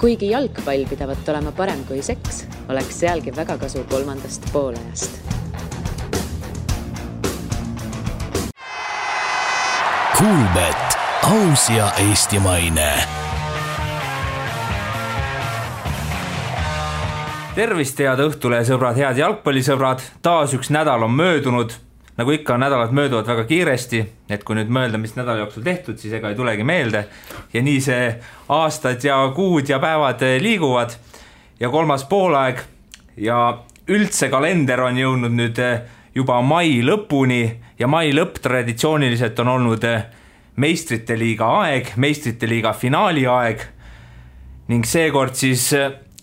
Kuigi jalgpall pidavat olema parem kui seks, oleks sealgi väga kasu kolmandast poolajast. Kuulbet, aus ja eestimaine. Tervist, head õhtule, sõbrad, head jalgpallisõbrad. Taas üks nädal on möödunud. Nagu ikka, nädalad mööduvad väga kiiresti, et kui nüüd mõelda, mis nädala jooksul tehtud, siis ega ei tulegi meelde. Ja nii see aastad ja kuud ja päevad liiguvad. Ja kolmas poolaeg ja üldse kalender on jõudnud nüüd juba mai lõpuni ja mai lõpp traditsiooniliselt on olnud meistrite liiga aeg, meistrite liiga finaali aeg ning seekord siis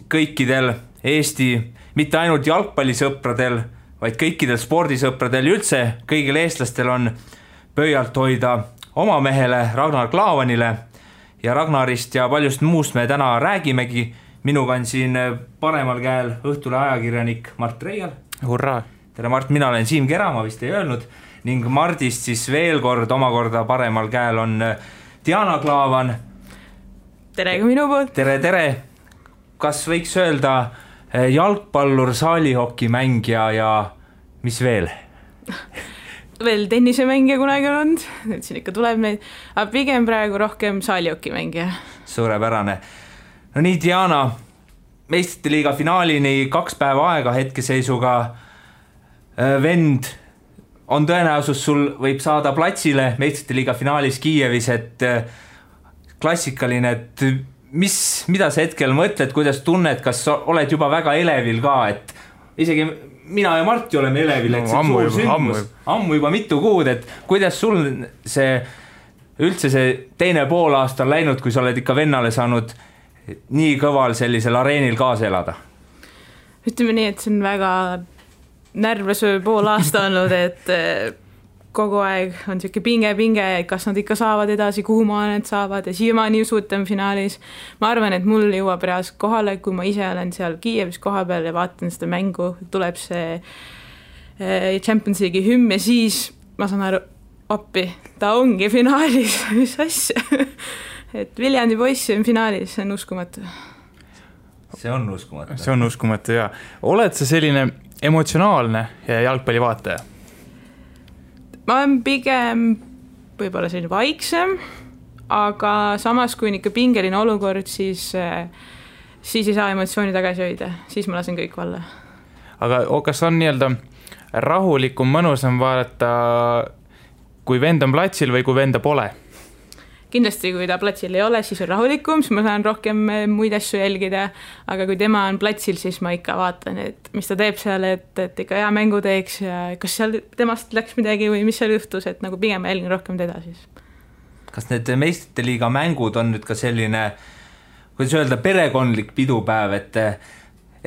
kõikidel Eesti, mitte ainult jalgpallisõpradel, vaid kõikidel spordisõpradel üldse, kõigil eestlastel on pöialt hoida oma mehele Ragnar Klavanile ja Ragnarist ja paljust muust me täna räägimegi. Minuga on siin paremal käel õhtule ajakirjanik Mart Reial. Hurraa! Tere Mart, mina olen Siim Kera, ma vist ei öelnud, ning Mardist siis veel kord omakorda paremal käel on Diana Klaavan. Tere ka minu poolt. Tere. Kas võiks öelda jalgpallur, saalihokimängija ja mis veel? Veel tennisemängija kunagi on, nüüd siin ikka tuleb neid, aga pigem praegu rohkem saalihokimängija. Suurepärane. No nii, Diana, meistrite liiga finaalini 2 päeva aega hetkeseisuga. Vend on tõenäosus, sul võib saada platsile meistrite liiga finaalis Kiievis, et klassikaline, et mida sa hetkel mõtled, kuidas tunned, kas oled juba väga elevil ka, et isegi mina ja Marti oleme elevil, et see suur sündmus, ammu juba mitu kuud, et kuidas sul üldse see teine poolaasta on läinud, kui sa oled ikka vennale saanud nii kõval sellisel areenil kaasa elada? Ütleme nii, et see on väga närvesöö poolaasta olnud, et kogu aeg on siuke pinge, kas nad ikka saavad edasi, kuhu maa need saavad ja siiamaani usutan finaalis. Ma arvan, et mul jõuab reaalselt kohale, kui ma ise olen seal Kiievis koha peal ja vaatan seda mängu, tuleb see Champions League'i hümn ja siis ma saan aru, appi, ta ongi finaalis, mis asja. Et Viljandi poissi on finaalis, see on uskumatu. See on uskumatu. See on uskumatu, jaa. Oled sa selline emotsionaalne jalgpalli vaataja? Ma olen pigem võib-olla selline vaiksem, aga samas kui on ikka pingeline olukord, siis ei saa emotsiooni tagasi hoida, siis ma lasen kõik valla. Aga kas on nii-öelda rahulikum, mõnusam vaadata, kui vend on platsil või kui venda pole? Kindlasti, kui ta platsil ei ole, siis on rahulikum, siis ma saan rohkem muid asju jälgida, aga kui tema on platsil, siis ma ikka vaatan, et mis ta teeb seal, et ikka hea mängu teeks ja kas seal temast läks midagi või mis seal juhtus, et nagu pigem jälgin rohkem teda siis. Kas need meistrite liiga mängud on nüüd ka selline, kuidas öelda, perekondlik pidupäev, et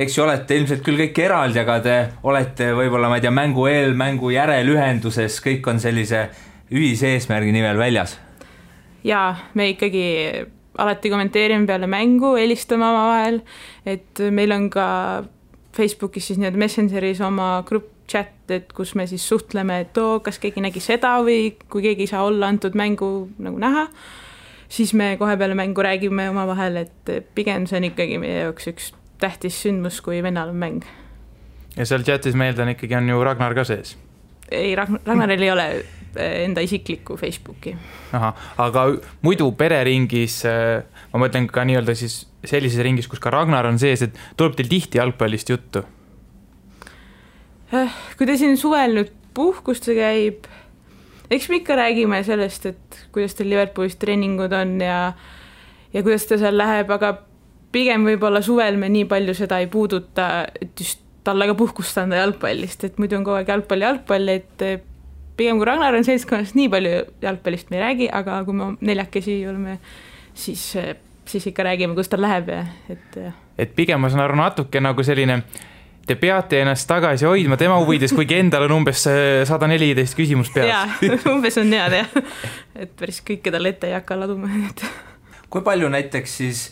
eks ju olete ilmselt küll kõik eraldi, aga te olete võib-olla, ma ei tea, mängu eel, mängu järel ühenduses, kõik on sellise ühise eesmärgi nimel väljas? Jaa, me ikkagi alati kommenteerime peale mängu, helistame oma vahel, et meil on ka Facebookis siis nii-öelda Messengeris oma grupp chat, et kus me siis suhtleme, et kas keegi nägi seda või kui keegi ei saa olla antud mängu nagu näha, siis me kohe peale mängu räägime oma vahel, et pigem see on ikkagi meie jaoks üks tähtis sündmus, kui vennal on mäng. Ja seal chatis meeldan ikkagi on ju Ragnar ka sees? Ei, Ragnaril ei ole enda isiklikku Facebooki. Aha, aga muidu pereringis, ma mõtlen ka nii-öelda siis sellises ringis, kus ka Ragnar on sees, et tuleb teil tihti jalgpallist juttu? Kui te siin suvel nüüd puhkuste käib, eks me ikka räägime sellest, et kuidas teil Liverpoolis treeningud on ja kuidas ta seal läheb, aga pigem võib-olla suvel me nii palju seda ei puuduta, et just talle ka puhkust anda jalgpallist, et muidu on kogu aeg jalgpall, et pigem kui Ragnar on seltskonnast nii palju jalgpallist me ei räägi, aga kui me neljakesi oleme, siis ikka räägime, kus ta läheb. Et pigem ma saan aru natuke nagu selline, te peate ennast tagasi hoidma tema huvides, kuigi endal on umbes 114 küsimus peas. Jaa, umbes on head, et päris kõike talle ette ei hakka laduma. Kui palju näiteks siis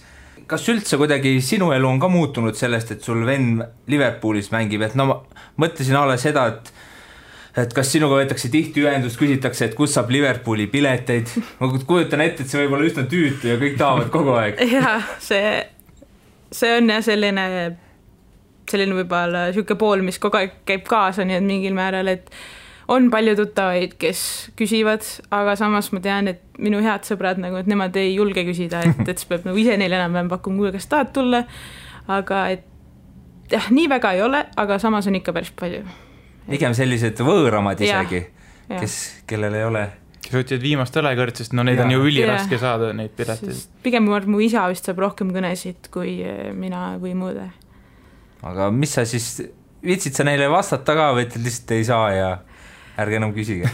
kas üldse kuidagi sinu elu on ka muutunud sellest, et sul vend Liverpoolis mängib, et no ma mõtlesin alla seda, et kas sinuga võetakse tihti ühendust, küsitakse, et kus saab Liverpooli pileteid, ma kujutan ette, et see võib olla üsna tüütu ja kõik tahavad kogu aeg. Jaa, see see on jah selline võib-olla siuke pool, mis kogu aeg käib kaasa, nii et mingil määral, et on palju tuttavaid, kes küsivad, aga samas ma tean, et minu head sõbrad nagu, et nemad ei julge küsida, et siis peab nagu ise neile enam pakkuma, kuule, kas tahad tulla, aga et jah, nii väga ei ole, aga samas on ikka päris palju. Pigem sellised võõramad isegi, kellel ei ole. Kes võtsid viimast õlekõrd, sest no neid on ju üliraske saada, neid pileteid. Pigem mu isa vist saab rohkem kõnesid kui mina või muude. Aga mis sa siis, viitsid sa neile vastata ka või et lihtsalt ei saa ja ärge enam küsige?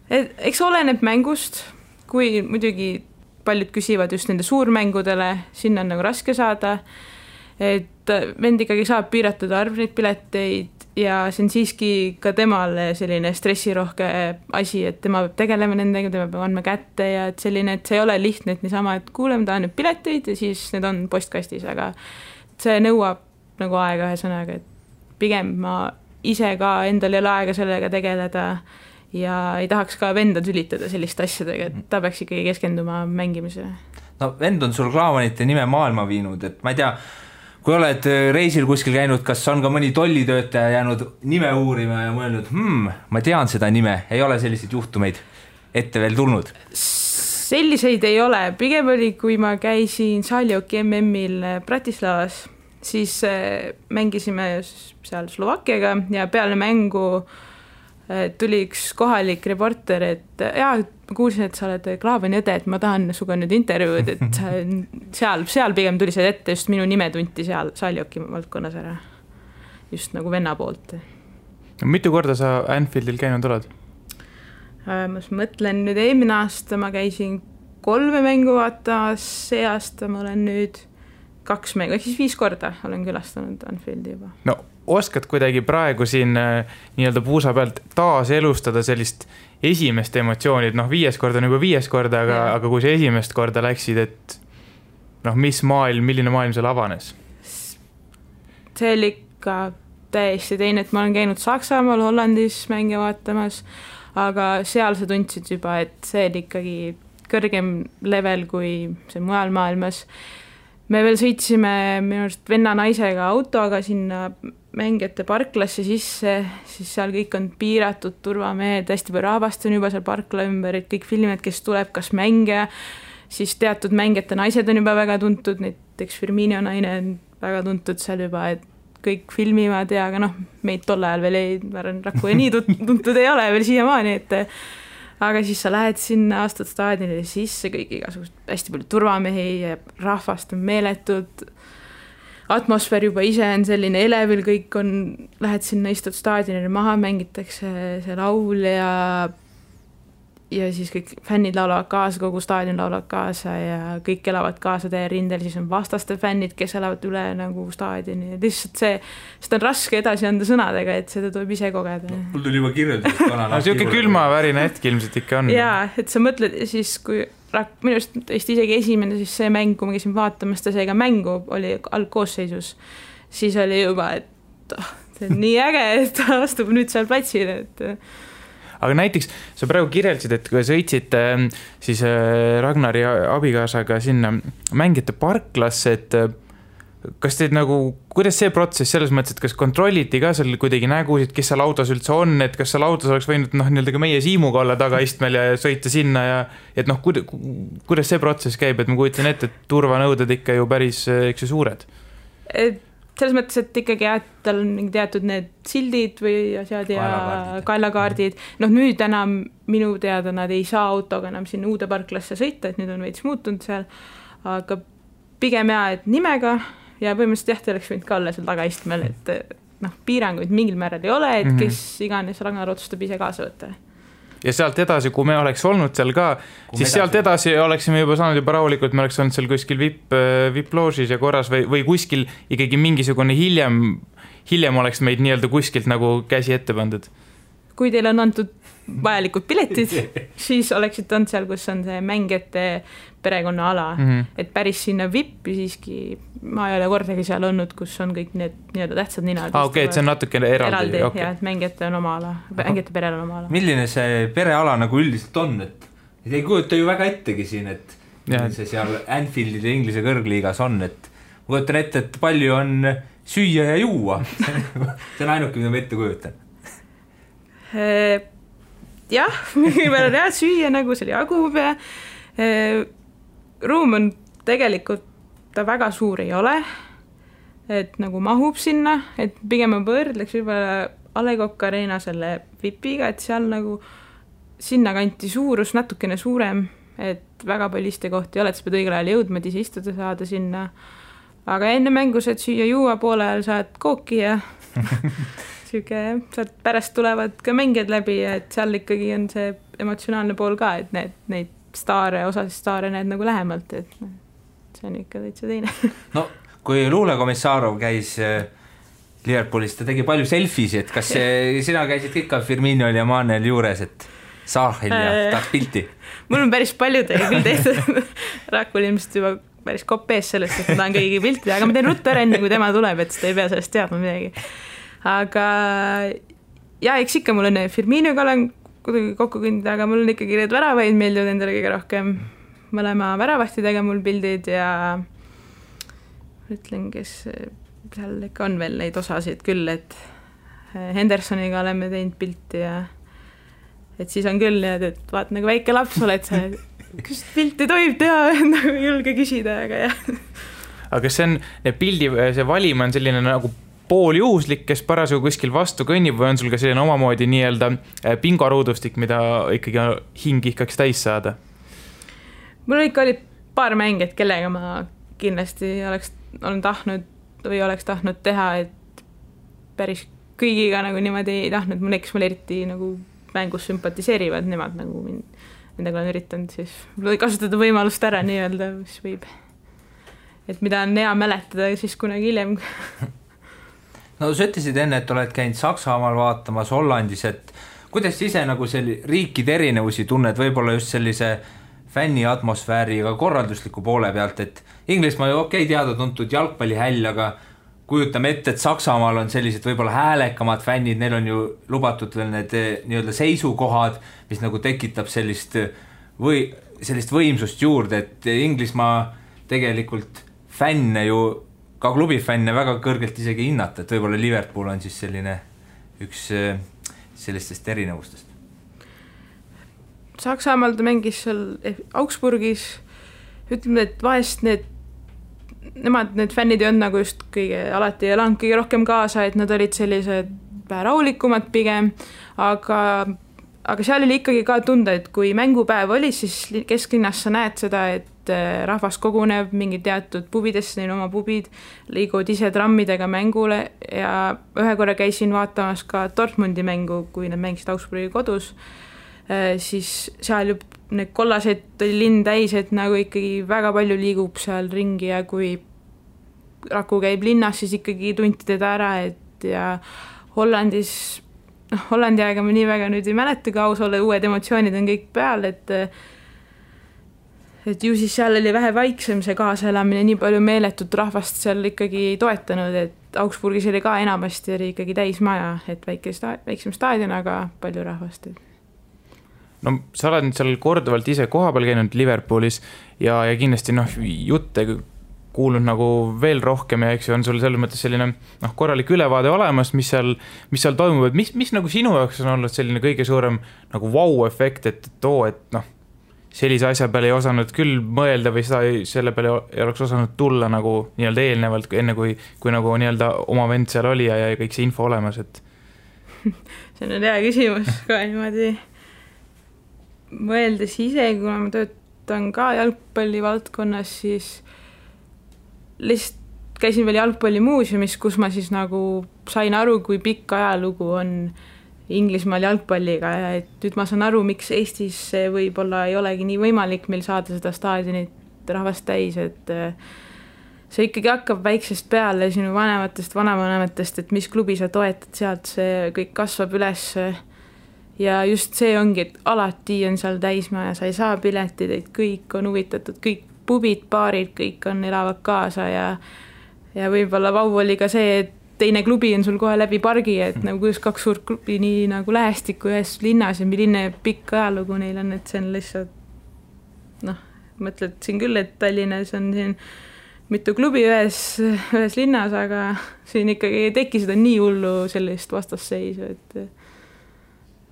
Eks oleneb mängust, kui muidugi paljud küsivad just nende suurmängudele, sinna on nagu raske saada, et vend ikkagi saab piiratud arv neid pileteid ja see on siiski ka temale selline stressirohke asi, et tema peab tegelema nendega, tema peab andma kätte ja et selline, et see ei ole lihtne, et niisama, et kuuleme, tahan nüüd pileteid ja siis need on postkastis, aga see nõuab nagu aega ühesõnaga, et pigem ma ise ka endal ei ole aega sellega tegeleda ja ei tahaks ka venda tülitada selliste asjadega, et ta peaks ikkagi keskenduma mängimisele. No vend on sul Klaavanite nime maailma viinud, et ma ei tea, kui oled reisil kuskil käinud, kas on ka mõni tollitöötaja jäänud nime uurima ja mõelnud, ma tean seda nime, ei ole selliseid juhtumeid ette veel tulnud? Selliseid ei ole, pigem oli, kui ma käisin Saljoki MM-il Bratislavas, siis mängisime seal Slovakkiaga ja peale mängu tuli üks kohalik reporter, et kuulsin, et sa oled Klaavani õde, et ma tahan suga nüüd intervjuud, et seal pigem tuli see ette, just minu nime tunti seal Saljoki valdkonnas ära, just nagu venna poolt. Mitu korda sa Anfieldil käinud oled? Ma mõtlen nüüd eelmine aasta ma käisin 3 mängu vaatamas, see aasta ma olen nüüd 2 mängu, ehk siis 5 korda olen külastanud Anfieldi juba. No oskad kuidagi praegu siin nii-öelda puusa pealt taas elustada sellist esimest emotsioonid, 5 korda on juba 5 korda, aga kui sa esimest korda läksid, et milline maailm seal avanes? See oli ikka täiesti teine, et ma olen käinud Saksamaal, Hollandis mänge vaatamas, aga seal sa tundsid juba, et see oli ikkagi kõrgem level kui see mujal maailmas. Me veel sõitsime minu arust venna naisega autoga sinna mängijate parklasse sisse, siis seal kõik on piiratud turvamehed, hästi palju rahvast on juba seal parkla ümber, et kõik filmid, kes tuleb, kas mängija, siis teatud mängijate naised on juba väga tuntud, näiteks Firmino naine on väga tuntud seal juba, et kõik filmivad ja aga meid tol ajal veel Raku nii tuntud ei ole veel siiamaani, et aga siis sa lähed sinna, astud staadionile sisse, kõik igasugust hästi palju turvamehi ja rahvast on meeletud, atmosfäär juba ise on selline elevil, kõik on, lähed sinna, istud staadionile maha, mängitakse see laul ja siis kõik fännid laulavad kaasa, kogu staadion laulavad kaasa ja kõik elavad kaasa teie rindel, siis on vastaste fännid, kes elavad üle nagu staadioni ja lihtsalt seda on raske edasi anda sõnadega, et seda tuleb ise kogeda. Mul tuli juba kirjeldus. Siuke külmavärine hetk ilmselt ikka on. Jaa, et sa mõtled siis, kui minust tõesti isegi esimene siis see mäng, kui ma käisin vaatamas, ta seega mängu oli algkoosseisus, siis oli juba, et see on nii äge, et ta astub nüüd seal platsile, et aga näiteks sa praegu kirjeldasid, et kui sõitsid siis Ragnari abikaasaga sinna mängijate parklasse, et kas teid kuidas see protsess selles mõttes, et kas kontrolliti ka seal kuidagi nägusid, kes seal autos üldse on, et kas seal autos oleks võinud nii-öelda ka meie Siimuga olla tagaistmel ja sõita sinna ja et kuidas see protsess käib, et ma kujutan ette, et turvanõuded ikka ju päris suured? Selles mõttes, et ikkagi tal on teatud need sildid või asjad ja kaelakaardid. Nüüd enam minu teada nad ei saa autoga enam sinna uude parklasse sõita, et nüüd on veits muutunud seal, aga pigem et nimega ja põhimõtteliselt te oleks võinud ka olla seal tagaistmel, et piiranguid mingil määral ei ole, et kes iganes Ragnar otsustab ise kaasa võtta. Ja sealt edasi, kui me oleks olnud seal ka, siis sealt edasi oleksime juba saanud juba rahulikult, me oleks olnud seal kuskil VIP-loožis ja korras või kuskil ikkagi mingisugune hiljem oleks meid nii-öelda kuskilt nagu käsi ette pandud. Kui teil on antud vajalikud piletid, siis oleksid olnud seal, kus on see mängijate perekonna ala, et päris sinna VIP-i siiski ma ei ole kordagi seal olnud, kus on kõik need nii-öelda tähtsad ninad. Okei, et see on natuke eraldi. Okay. Ja, et mängijate on oma ala, mängijate perel on oma ala. Milline see pereala nagu üldiselt on, et ei kujuta ju väga ettegi siin, et see seal Anfieldil ja Inglise kõrgliigas on, et ma kujutan ette, et palju on süüa ja juua. See on ainuke, mida ma ette kujutan. Jah, mingi peale jah, süüa nagu seal jagub ja ruum on tegelikult, ta väga suur ei ole, et nagu mahub sinna, et pigem ma võrdleks võib-olla A. Le Coq Arena selle VIPiga, et seal nagu sinna kanti suurus natukene suurem, et väga palju istekohti ei ole, et sa pead õigel ajal jõudma, et ise istuda saada sinna. Aga enne mängu saad süüa juua, poole ajal saad kooki ja sealt pärast tulevad ka mängijad läbi ja et seal ikkagi on see emotsionaalne pool ka, et neid osasid staare näed nagu lähemalt, et see on ikka täitsa teine. No, kui Luule Komissarov käis Liverpoolis, ta tegi palju selfisi, et kas sina käisid ikka Firminol ja Manel juures, et Saahil ja tahaks pilti? Mul on päris palju küll tehtud. Rakul ilmselt juba päris kopees sellest, et ma tahan kõigi piltida, aga ma teen ruttu ära enne, kui tema tuleb, et seda ei pea sellest teadma midagi. Aga ja, eks ikka mul on Firminoga olen kuidagi kokku kõndida, aga mul on ikkagi need väravaid meeldivad endale kõige rohkem. Mõlema väravahtidega mul pildid ja ütlen, kes seal ikka on veel neid osasid küll, et Hendersoniga oleme teinud pilti ja et siis on küll, et vaat nagu väike laps oled sa, kas pilti tohib teha, nagu julge küsida, aga jah. Aga kas see on, pildi, see valim on selline nagu pooljuhuslik, kes parasjagu kuskil vastu kõnnib või on sul ka selline omamoodi nii-öelda pingoruudustik, mida ikkagi hing ihkaks täis saada? Mul ikka oli paar mängijat, kellega ma kindlasti olen tahtnud teha, et päris kõigiga nagu niimoodi ei tahtnud, mul eriti nagu mängus sümpatiseerivad nemad nagu nendega olen üritanud siis kasutada võimalust ära nii-öelda, mis võib, et mida on hea mäletada siis kunagi hiljem. No sa ütlesid enne, et oled käinud Saksamaal vaatamas, Hollandis, et kuidas ise nagu riikide erinevusi tunned, võib-olla just sellise fänni atmosfääriga korraldusliku poole pealt, et Inglismaa ju teada-tuntud jalgpallihäll, aga kujutame ette, et Saksamaal on sellised võib-olla häälekamad fännid, neil on ju lubatud veel need nii-öelda seisukohad, mis nagu tekitab sellist võimsust juurde, et Inglismaa tegelikult fänne ju ka klubifänne väga kõrgelt isegi hinnata, et võib-olla Liverpool on siis selline üks sellistest erinevustest. Saksamaal ta mängis seal Augsburgis, ütleme, et vahest need fännid ei olnud nagu just alati ei elanud kõige rohkem kaasa, et nad olid sellised rahulikumad pigem, aga seal oli ikkagi ka tunda, et kui mängupäev oli, siis kesklinnas sa näed seda, et rahvas koguneb mingi teatud pubidesse, neil oma pubid, liiguvad ise trammidega mängule ja ühe korra käisin vaatamas ka Dortmundi mängu, kui nad mängisid Augsburgi kodus, siis seal ju need kollased oli linn täis, et nagu ikkagi väga palju liigub seal ringi ja kui Raku käib linnas, siis ikkagi tunti teda ära, et ja Hollandis, Hollandi aega ma nii väga nüüd ei mäleta, kui aus olla, uued emotsioonid on kõik peal, et ju siis seal oli vähe vaiksem see kaasaelamine, nii palju meeletut rahvast seal ikkagi ei toetanud, et Augsburgis oli ka enamasti oli ikkagi täismaja, et väiksem staadion, aga palju rahvast. No sa oled seal korduvalt ise kohapeal käinud Liverpoolis ja kindlasti jutte kuulnud nagu veel rohkem ja eks on sul selles mõttes selline korralik ülevaade olemas, mis seal toimub, et mis nagu sinu jaoks on olnud selline kõige suurem nagu wow-efekt, et sellise asja peale ei osanud küll mõelda või selle peale ei oleks osanud tulla nagu nii-öelda eelnevalt, enne kui nagu nii-öelda oma vend seal oli ja kõik see info olemas, et see on hea küsimus ka niimoodi mõeldes ise, kuna ma töötan ka jalgpalli valdkonnas, siis lihtsalt käisin veel jalgpallimuuseumis, kus ma siis nagu sain aru, kui pikk ajalugu on Inglismaal jalgpalliga ja et nüüd ma saan aru, miks Eestis võib-olla ei olegi nii võimalik meil saada seda staadionit rahvast täis, et see ikkagi hakkab väiksest peale sinu vanavanematest, et mis klubi sa toetad, sealt see kõik kasvab üles ja just see ongi, et alati on seal täismaja, sa ei saa piletid, et kõik on huvitatud, kõik pubid, baarid, kõik on elavad kaasa ja võib-olla vau oli ka see, et teine klubi on sul kohe läbi pargi, et nagu kuidas kaks suurt klubi nii nagu lähestikku ühes linnas ja milline pikk ajalugu neil on, et see on lihtsalt mõtled siin küll, et Tallinnas on siin mitu klubi ühes linnas, aga siin ikkagi ei teki seda nii hullu sellist vastasseisu, et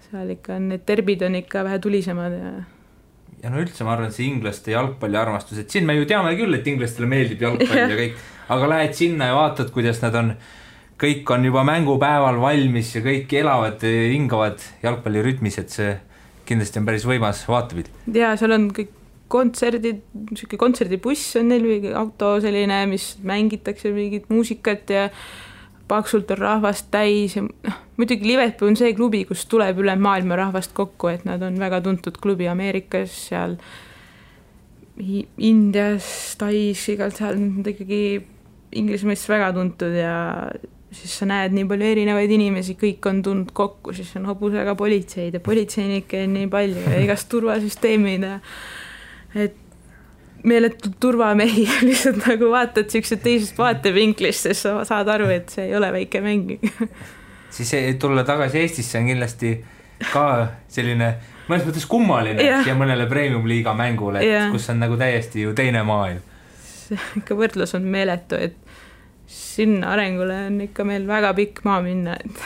seal ikka need derbid on ikka vähe tulisemad ja no üldse ma arvan, see inglaste jalgpalli armastus, et siin me ju teame küll, et inglastele meeldib jalgpalli ja kõik, aga lähed sinna ja vaatad, kuidas nad on, kõik on juba mängupäeval valmis ja kõik elavad, hingavad jalgpallirütmis, et see kindlasti on päris võimas vaatepilt. Ja seal on kõik kontserdid, kontserdibuss on neil või auto selline, mis mängitakse mingit muusikat ja paksult on rahvast täis ja muidugi Liverpool on see klubi, kus tuleb üle maailma rahvast kokku, et nad on väga tuntud klubi Ameerikas, seal Indias, Tais, igalt seal on ikkagi Inglismaast väga tuntud ja siis sa näed nii palju erinevaid inimesi, kõik on tulnud kokku, siis on hobusega politseid ja politseinikke on nii palju ja igast turvasüsteemid ja et meeletult turvamehi lihtsalt nagu vaatad siuksed teisest vaatevinklist, sest sa saad aru, et see ei ole väike mäng. Siis tulla tagasi Eestisse on kindlasti ka selline mõnes mõttes kummaline ja mõnele premium-liiga mängule, et kus on nagu täiesti ju teine maailm. Ikka võrdlus on meeletu, et sinna arengule on ikka meil väga pikk maa minna, et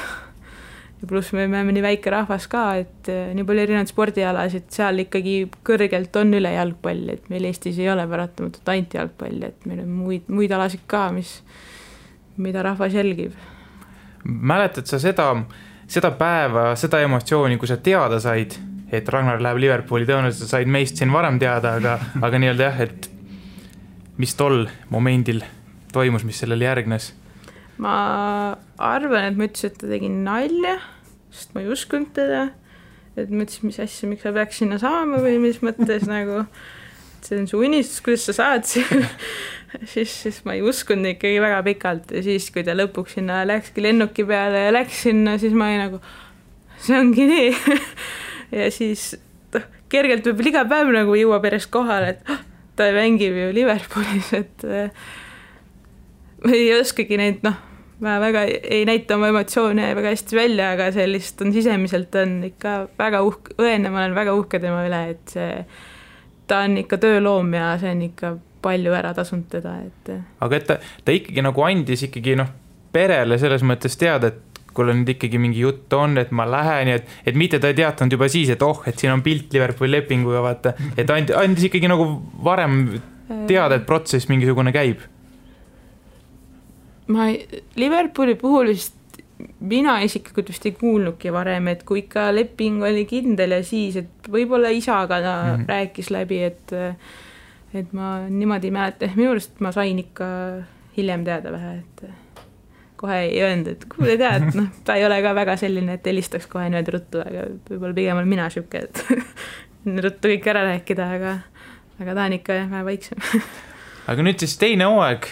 ja pluss me oleme nii väike rahvas ka, et nii palju erinevad spordialasid, seal ikkagi kõrgelt on üle jalgpall, et meil Eestis ei ole paratamatult ainult jalgpall, et meil on muid alasid ka, mida rahvas jälgib. Mäletad sa seda päeva, seda emotsiooni, kui sa teada said, et Ragnar läheb Liverpooli, tõenäoliselt said meist siin varem teada, aga nii-öelda jah, et mis tol momendil toimus, mis sellele järgnes? Ma arvan, et ma ütlesin, et ta tegi nalja, sest ma ei uskunud teda, et ma ütlesin, mis asja, miks sa peaks sinna saama või mis mõttes nagu, see on su unistus, kuidas sa saad siis ma ei uskunud ikkagi väga pikalt ja siis, kui ta lõpuks sinna läkski lennuki peale ja läks sinna, siis ma ei nagu, see ongi nii ja siis kergelt võib iga päev nagu jõuab järjest kohale, et ta mängib ju Liverpoolis, et ei oskagi neid, ma väga ei näita oma emotsioone väga hästi välja, aga sellist on sisemiselt on ikka väga õenne, ma olen väga uhke tema üle, et ta on ikka tööloom ja see on ikka palju ära tasunud teda. Aga et ta ikkagi nagu andis ikkagi perele selles mõttes teada, et kui nüüd ikkagi mingi jutt on, et ma lähen ja et mitte ta ei teatanud juba siis, et et siin on pilt Liverpooli lepinguga, vaata, et andis ikkagi nagu varem teada, et protsess mingisugune käib. Liverpooli puhul vist mina isiklikult vist ei kuulnudki varem, et kui ikka leping oli kindel ja siis, et võib-olla isaga ta rääkis läbi, et ma niimoodi mäleta, minu arust ma sain ikka hiljem teada vähe, et kohe ei öelnud, et kuule tead, ta ei ole ka väga selline, et helistaks kohe nüüd ruttu, aga võib-olla pigem olen mina šüke, et ruttu kõik ära rääkida, aga ta on ikka vähe vaiksem. Aga nüüd siis teine hooaeg,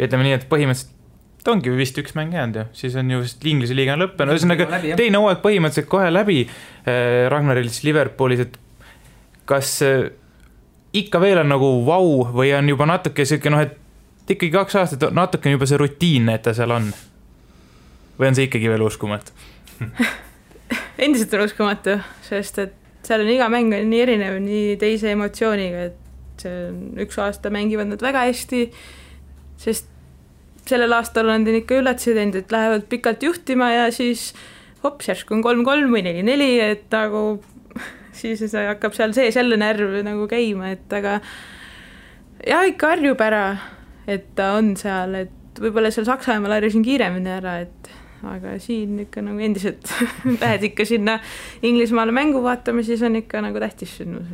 ütleme nii, et põhimõtteliselt ta ongi vist üks mäng jäänud ja siis on ju vist Inglise liiga on lõppenud, ühesõnaga teine hooaeg põhimõtteliselt kohe läbi Ragnaril Liverpoolis, et kas ikka veel on nagu vau või on juba natuke selline, et ikkagi 2 aastat natuke on juba see rutiinne, et ta seal on või on see ikkagi veel uskumatu? Endiselt on uskumatu, sest et seal on iga mäng on nii erinev, nii teise emotsiooniga, et üks aasta mängivad nad väga hästi, sest sellel aastal on ikka üllatusi teinud, et lähevad pikalt juhtima ja siis hops, järsku on 3-3 või 4-4, et nagu siis hakkab seal sees jälle närv nagu käima, et aga ja ikka harjub ära, et ta on seal, et võib-olla seal Saksamaal harjusin kiiremini ära, et aga siin ikka nagu endiselt lähed ikka sinna Inglismaale mängu vaatama, siis on ikka nagu tähtis sündmus.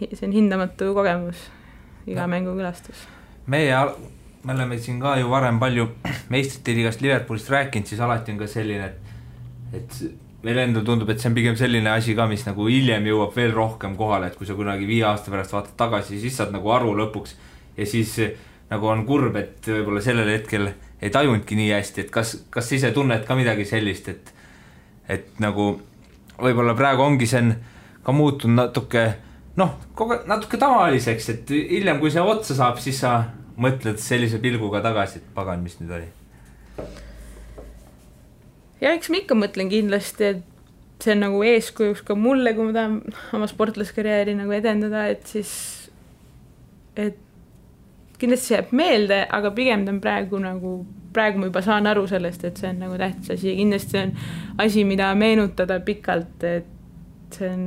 See on hindamatu kogemus, iga mängu külastus. Me oleme siin ka ju varem palju meistrite liigast Liverpoolist rääkinud, siis alati on ka selline, et meil endal tundub, et see on pigem selline asi ka, mis nagu hiljem jõuab veel rohkem kohale, et kui sa kunagi 5 aasta pärast vaatad tagasi, siis saad nagu aru lõpuks ja siis nagu on kurb, et võib-olla sellel hetkel ei tajunudki nii hästi, et kas ise tunned ka midagi sellist, et nagu võib-olla praegu ongi see ka muutunud natuke tavaliseks, et hiljem kui see otsa saab, siis sa mõtled sellise pilguga tagasi, et pagan, mis nüüd oli? Ja eks ma ikka mõtlen kindlasti, et see on nagu eeskujuks ka mulle, kui ma tahan oma sportlaskarjääri nagu edendada, et siis et kindlasti see jääb meelde, aga pigem ta on praegu ma juba saan aru sellest, et see on nagu tähtis asi ja kindlasti on asi, mida meenutada pikalt, et see on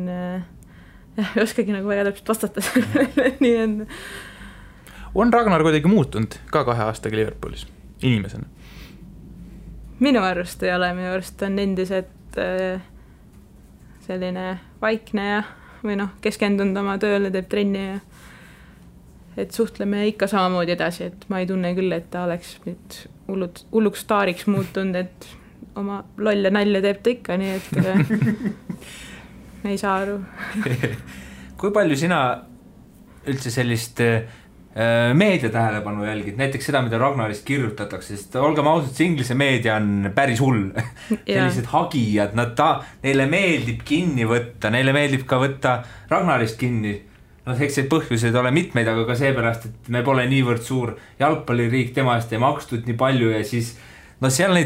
ei oskagi nagu väga täpselt vastata sellele, nii on Ragnar kuidagi muutunud ka 2 aastaga Liverpoolis inimesena? Minu arust ei ole, minu arust on endiselt selline vaikne ja või keskendunud oma tööle, teeb trenni ja et suhtleme ikka samamoodi edasi, et ma ei tunne küll, et ta oleks nüüd hulluks staariks muutunud, et oma lolle nalja teeb ta ikka, nii et ei saa aru. Kui palju sina üldse sellist meedia tähelepanu jälgid, näiteks seda, mida Ragnarist kirjutatakse, sest olgem ausad, see inglise meedia on päris hull. Sellised hagijad, neile meeldib kinni võtta, neile meeldib ka võtta Ragnarist kinni. Eks see põhjuseid ole mitmeid, aga ka seepärast, et me pole niivõrd suur jalgpalliriik, tema eest ei makstud nii palju ja siis seal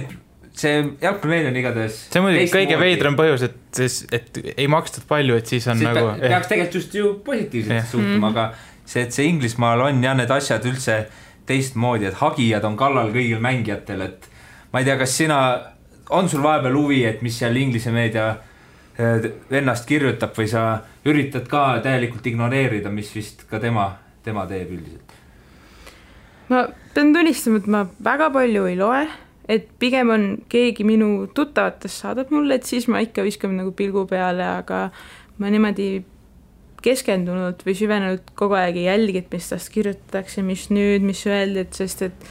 see jalgpallimeedia on igatahes see on muidugi kõige veidram põhjus, et ei makstud palju, et siis on siis nagu peaks tegelikult just ju positiivselt suhtuma, aga see, et see Inglismaal on ja need asjad üldse teistmoodi, et hagijad on kallal kõigil mängijatel, et ma ei tea, kas on sul vahepeal huvi, et mis seal inglise meedia ennast kirjutab või sa üritad ka täielikult ignoreerida, mis vist ka tema teeb üldiselt? Ma pean tunnistama, et ma väga palju ei loe, et pigem on keegi minu tuttavatest saadab mulle, et siis ma ikka viskan nagu pilgu peale, aga ma niimoodi keskendunud või süvenenud kogu aeg ei jälgi, et mis tast kirjutatakse, mis nüüd, mis öeldi, et sest et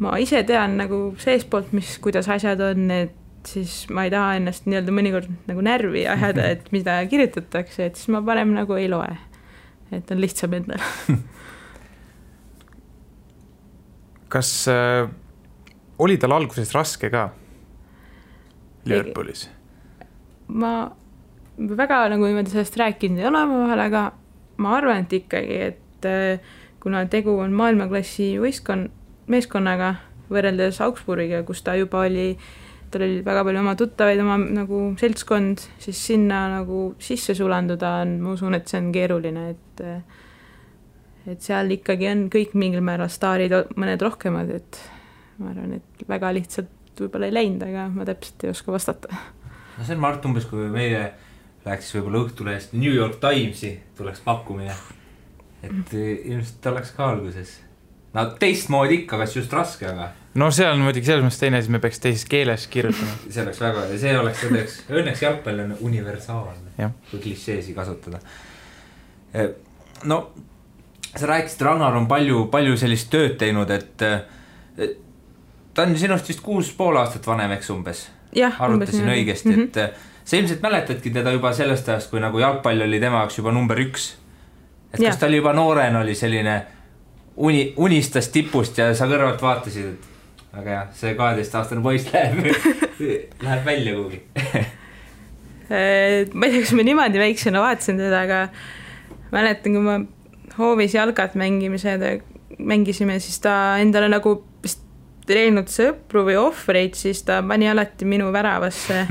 ma ise tean nagu seespoolt, kuidas asjad on, et siis ma ei taha ennast nii-öelda mõnikord nagu närvi ajada, et mida kirjutatakse, et siis ma parem nagu ei loe, et on lihtsam endal. Kas oli tal alguses raske ka Liverpoolis? Ma väga nagu niimoodi sellest rääkinud ei ole vahel, aga ma arvan, et ikkagi, et kuna tegu on maailmaklassi meeskonnaga võrreldes Augsburgiga, kus ta juba oli, tal oli väga palju oma tuttavaid, oma nagu seltskond, siis sinna nagu sisse sulanduda on, ma usun, et see on keeruline, et seal ikkagi on kõik mingil määral staarid, mõned rohkemad, et ma arvan, et väga lihtsalt võib-olla ei läinud, aga ma täpselt ei oska vastata. No see on Mart umbes, kui meile läheks võib-olla Õhtulehest New York Timesi tuleks pakkumine, et ilmselt oleks ka alguses. No teistmoodi ikka, kas just raske, aga no see on muidugi selles mõttes teine, siis me peaks teises keeles kirjutama. See oleks väga, ja see oleks õnneks jalgpall on universaalne, kui klišeesi kasutada. No sa rääkisid, Ragnar on palju sellist tööd teinud, et ta on sinust vist 6,5 aastat vanem, eks umbes? Arvutasin õigesti, et sa ilmselt mäletadki teda juba sellest ajast, kui nagu jalgpall oli tema jaoks juba number 1. Et kas ta oli juba noorena oli selline unistas tipust ja sa kõrvalt vaatasid, et aga jah, see 12-aastane poiss läheb välja kuhugi. Ma ei tea, kas ma niimoodi väiksena vaatasin teda, aga mäletan, kui ma hoovis jalgat mängisime, siis ta endale nagu treeninud sõpru või ohvreid, siis ta pani alati minu väravasse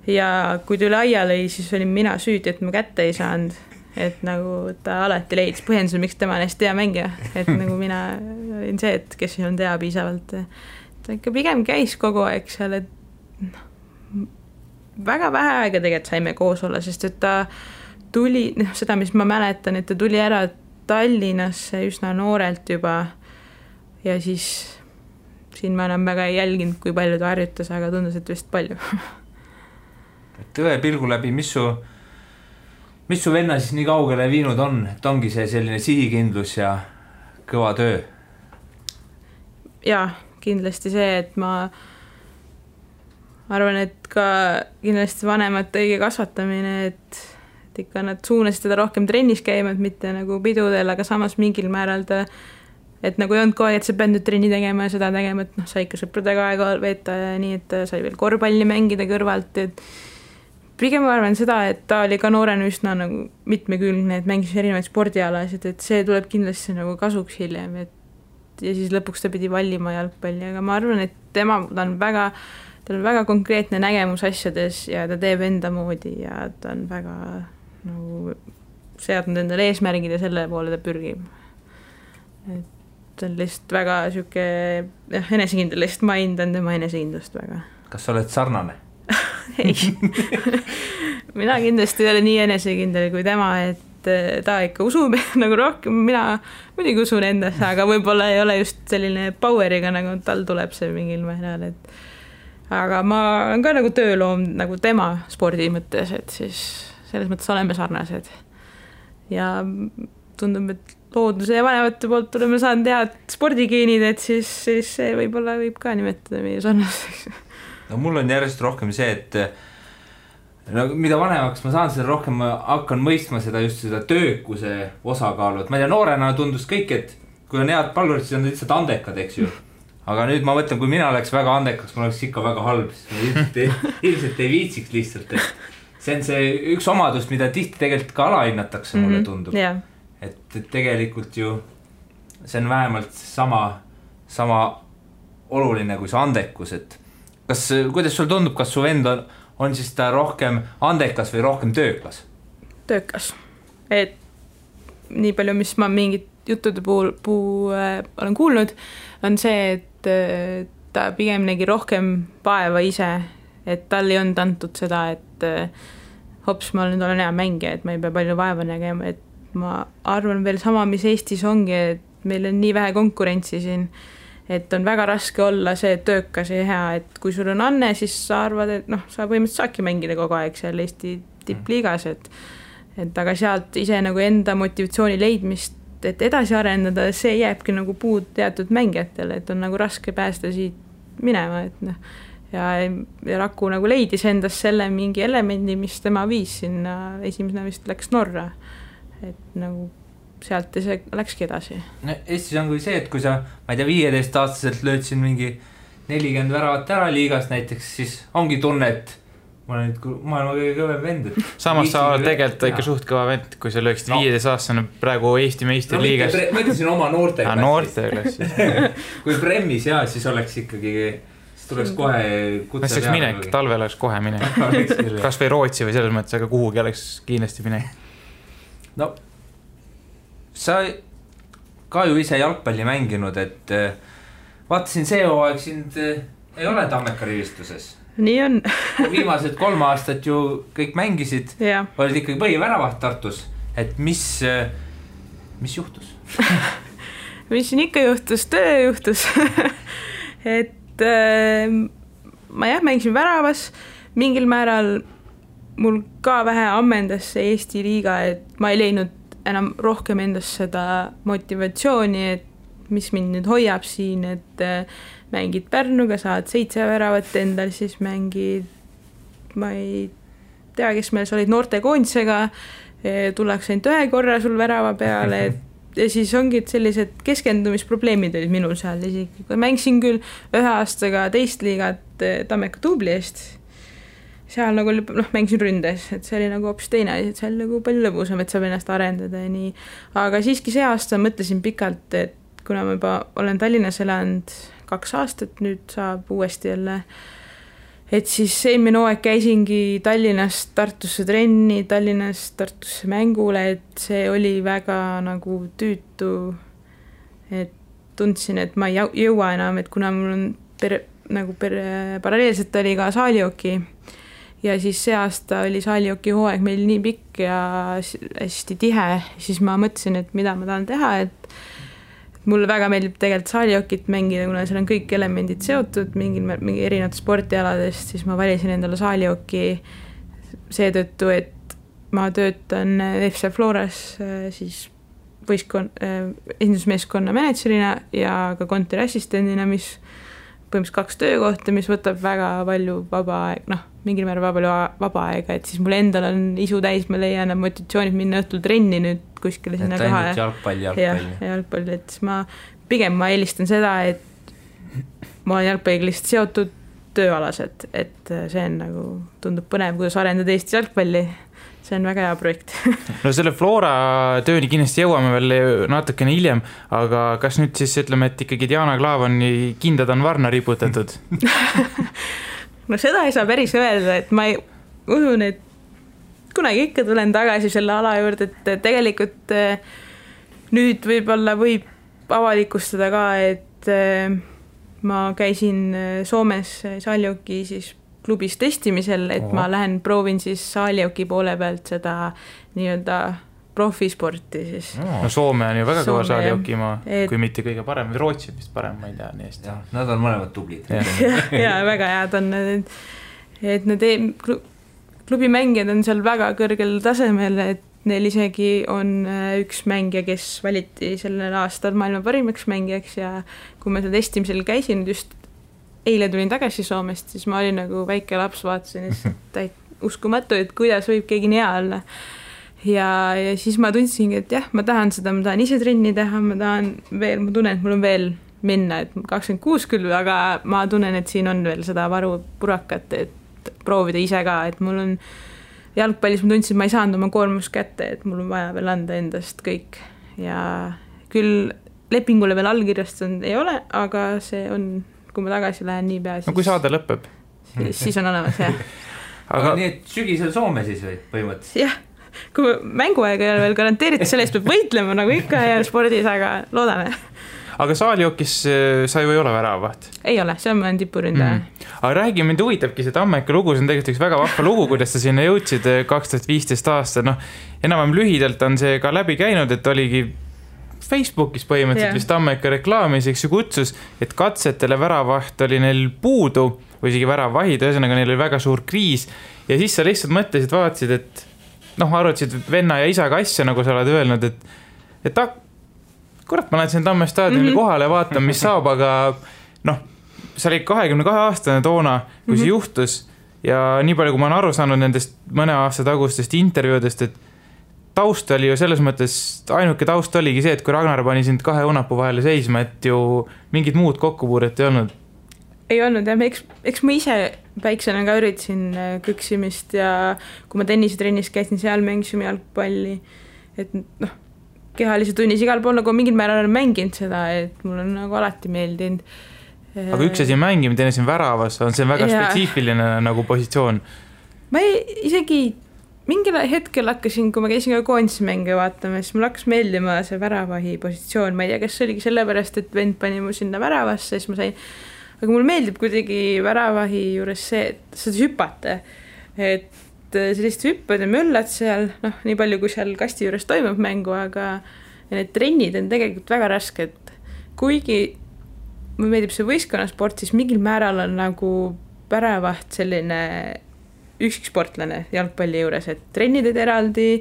ja kui tuli aia lõi, siis olin mina süüdi, et ma kätte ei saanud, et nagu ta alati leidis põhjenduse, miks tema on hästi hea mängija, et nagu mina olin see, et kes ei olnud hea piisavalt, ta ikka pigem käis kogu aeg seal, et väga vähe aega tegelikult saime koos olla, sest et ta tuli, seda mis ma mäletan, et ta tuli ära Tallinnasse üsna noorelt juba ja siis siin ma enam väga ei jälginud, kui palju ta harjutas, aga tundus, et vist palju. Tõe pilgu läbi, mis su venna siis nii kaugele viinud on, et ongi see selline sihikindlus ja kõva töö? Jaa, kindlasti see, et ma arvan, et ka kindlasti vanemate õige kasvatamine, et ikka nad suunasid teda rohkem trennis käima, et mitte nagu pidudel, aga samas mingil määral ta et nagu ei olnud kohe, et sa pead nüüd trenni tegema ja seda tegema, et sa ikka sõpradega aega veeta ja nii, et sai veel korvpalli mängida kõrvalt, et pigem ma arvan seda, et ta oli ka noorena üsna nagu mitmekülgne, et mängis erinevaid spordialasid, et see tuleb kindlasti nagu kasuks hiljem, et ja siis lõpuks ta pidi valima jalgpalli, aga ma arvan, et ta on väga tal on väga konkreetne nägemus asjades ja ta teeb enda moodi ja ta on väga nagu seadnud endale eesmärgid ja selle poole ta pürgib. Et ta on lihtsalt väga siuke enesekindel, lihtsalt ma hindan tema enesekindlust väga. Kas sa oled sarnane? Ei. Mina kindlasti ei ole nii enesekindel kui tema, et ta ikka usub nagu rohkem, mina muidugi usun endasse, aga võib-olla ei ole just selline poweriga, nagu tal tuleb see mingil määral, et aga ma olen ka nagu tööloom nagu tema spordi mõttes, et siis selles mõttes oleme sarnased ja tundub, et looduse ja vanemate poolt oleme saanud head spordigeenid, et siis see võib-olla võib ka nimetada meie sarnaseks. No mul on järjest rohkem see, et no, mida vanemaks ma saan, seda rohkem ma hakkan mõistma seda just seda töökuse osakaalu, et ma ei tea, noorena tundus kõik, et kui on head pallurid, siis on lihtsalt andekad, eks ju. Aga nüüd ma mõtlen, kui mina oleks väga andekaks, ma oleks ikka väga halb, ilmselt ei viitsiks lihtsalt, et see on see üks omadus, mida tihti tegelikult ka alahinnatakse, mulle tundub. Yeah. Et tegelikult ju see on vähemalt sama oluline kui see andekus, et kuidas sul tundub, kas su vend on siis ta rohkem andekas või rohkem töökas? Töökas. Et nii palju, mis ma mingit juttude puhul olen kuulnud, on see, et ta pigem nägi rohkem vaeva ise, et tal ei olnud antud seda, et hops, ma nüüd olen hea mängija, et ma ei pea palju vaeva nägema, et ma arvan veel sama, mis Eestis ongi, et meil on nii vähe konkurentsi siin, et on väga raske olla see töökas ja hea, et kui sul on anne, siis sa arvad, et sa põhimõtteliselt saadki mängida kogu aeg seal Eesti tippliigas, et aga sealt ise nagu enda motivatsiooni leidmist, et edasi arendada, see jääbki nagu puud teatud mängijatele, et on nagu raske päästa siit minema, et ja Raku nagu leidis endas selle mingi elemendi, mis tema viis sinna, esimesena vist läks Norra, et nagu sealt see läkski edasi. No, Eestis on kui see, et kui sa, ma ei tea, 15-aastaselt lööd siin mingi 40 väravat ära liigas näiteks, siis ongi tunne, et ma olen nüüd maailma kõige kõvem vend. Samas sa oled tegelikult ikka suht kõva vend, kui sa lööksid 15-aastane praegu Eesti meister liigas. Ma ütlesin oma noorteklassis. Kui Bremmis siis oleks ikkagi, siis tuleks kohe kutse. See oleks minek, talvel oleks kohe minek. Kas või Rootsi või selles mõttes, aga kuhugi oleks kindlasti minek. No sa ka ju ise jalgpalli mänginud, et vaatasin see hooaeg sind ei ole Tammeka rivistuses. Nii on. Viimased 3 aastat ju kõik mängisid, olid ikkagi põhiväravaht Tartus, et mis juhtus? Mis siin ikka juhtus, töö juhtus. Et ma mängisin väravas, mingil määral mul ka vähe ammendas see Eesti liiga, et ma ei leidnud enam rohkem endast seda motivatsiooni, et mis mind nüüd hoiab siin, et mängid Pärnuga, saad 7 väravat endal, siis mängid, ma ei tea, kes meil olid noortekoondisega, tullakse ainult 1 korra sul värava peale, ja siis ongi sellised keskendumisprobleemid olid minul seal isegi. Mängisin küll 1 aastaga teist liigat Tammeka Tubli eest, seal nagu mängisin ründes, et see oli nagu hoopis teine, et see oli nagu palju lõbusam, et saab ennast arendada ja nii. Aga siiski see aasta mõtlesin pikalt, et kuna ma juba olen Tallinnas elanud 2 aastat, nüüd saab uuesti jälle, et siis eelmine hooaeg käisingi Tallinnast Tartusse trenni, Tallinnast Tartusse mängule, et see oli väga nagu tüütu, et tundsin, et ma ei jõua enam, et kuna mul on paralleelselt oli ka saalioki, ja siis see aasta oli saalioki hooaeg meil nii pikk ja hästi tihe, siis ma mõtlesin, et mida ma tahan teha, et mulle väga meeldib tegelikult saaliokit mängida, kuna seal on kõik elemendid seotud mingi erinevad sportialadest, siis ma valisin endale saalioki seetõttu, et ma töötan FC Floras siis esindusmeeskonna managerina ja ka kontoriassistendina, mis põhimõtteliselt 2 töökohta, mis võtab väga palju vaba aeg, mingil määral vaba aega, et siis mul endal on isu täis, ma leian motivatsioonid minna õhtul trenni nüüd kuskile sinna koha. Jalgpalli, et ma eelistan seda, et ma olen jalgpalliga lihtsalt seotud tööalaselt, et see on nagu, tundub põnev, kuidas arendada Eesti jalgpalli. See on väga hea projekt. No selle Flora tööni kindlasti jõuame veel natukene hiljem, aga kas nüüd siis ütleme, et ikkagi Diana Klaavani kindad on varna riputatud? no seda ei saa päris öelda, et ma usun, et kunagi ikka tulen tagasi selle ala juurde, et tegelikult nüüd võib-olla võib avalikustada ka, et ma käisin Soomes Saaljoki siis klubis testimisel, et ma lähen proovin siis Saaljoki poole pealt seda nii-öelda profisporti siis. No Soome on ju väga kõva Saaljokimaa, kui mitte kõige parem, või Rootsi vist parem, ma ei tea nii hästi. Nad on mõlemad tublid. ja väga head on, et need klubimängijad on seal väga kõrgel tasemel, et neil isegi on üks mängija, kes valiti sellel aastal maailma parimaks mängijaks ja kui ma seda testimisel käisin, just eile tulin tagasi Soomest, siis ma olin nagu väike laps, vaatasin uskumatu, et kuidas võib keegi nii hea olla. Ja siis ma tundsingi, et jah, ma tahan seda, ma tahan ise trenni teha, ma tunnen, et mul on veel minna, et 26 küll, aga ma tunnen, et siin on veel seda varu purakat, et proovida ise ka, et mul on jalgpallis, ma tundsin, et ma ei saanud oma koormus kätte, et mul on vaja veel anda endast kõik ja küll lepingule veel allkirjastanud ei ole, aga see on, kui ma tagasi lähen nii pea, no kui saade lõpeb. Siis on olemas, jah. Aga nii, et sügisel Soome siis või põhimõtteliselt? Jah. Kui mänguaega ei ole veel garanteeritud, selle eest peab võitlema nagu ikka ja spordis, aga loodame. Aga Saaljokis sa ju ei ole väravaht? Ei ole, see on tipuründaja. Aga räägi, mind huvitabki see Tammeka lugu, see on tegelikult üks väga vahva lugu, kuidas sa sinna jõudsid 2015 aastal. No, enam lühidalt on see ka läbi käinud, et oligi Facebookis põhimõtteliselt vist Tammeka reklaamiseks ju kutsus, et katsetele väravaht oli neil puudu või isegi väravahid, ühesõnaga neil oli väga suur kriis ja siis sa lihtsalt mõtlesid, vaatasid, et arutasid venna ja isaga asja, nagu sa oled öelnud, et kurat, ma lähen siin Tamme staadionile kohale ja vaatan, mis saab, aga sa olid 22-aastane toona, kui see juhtus ja nii palju, kui ma olen aru saanud nendest mõne aasta tagustest intervjuudest, et taust oli ju selles mõttes, ainuke taust oligi see, et kui Ragnar pani sind 2 õunapuu vahele seisma, et ju mingid muud kokkupuuret ei olnud. Ei olnud, jah, eks ma ise väiksena ka üritasin küksimist ja kui ma tennisetrennis käisin seal, mängisime jalgpalli, et kehalise tunnis igal pool nagu mingil määral olen mänginud seda, et mul on nagu alati meeldinud. Aga üks asi on mängimine, teine siin väravas, on see väga spetsiifiline nagu positsioon? Ma isegi mingil hetkel hakkasin, kui ma käisin ka koondismänge vaatama, siis mul hakkas meeldima see väravahi positsioon, ma ei tea, kas see oligi sellepärast, et vend pani mu sinna väravasse, siis ma sain. Aga mul meeldib kuidagi väravahi juures see, et sa hüppate, et sellist hüppad ja möllad seal, nii palju kui seal kasti juures toimub mängu, aga need trennid on tegelikult väga rasked. Kuigi mulle meeldib see võistkonnasport, siis mingil määral on nagu väravaht selline üksiksportlane jalgpalli juures, et trennid eraldi,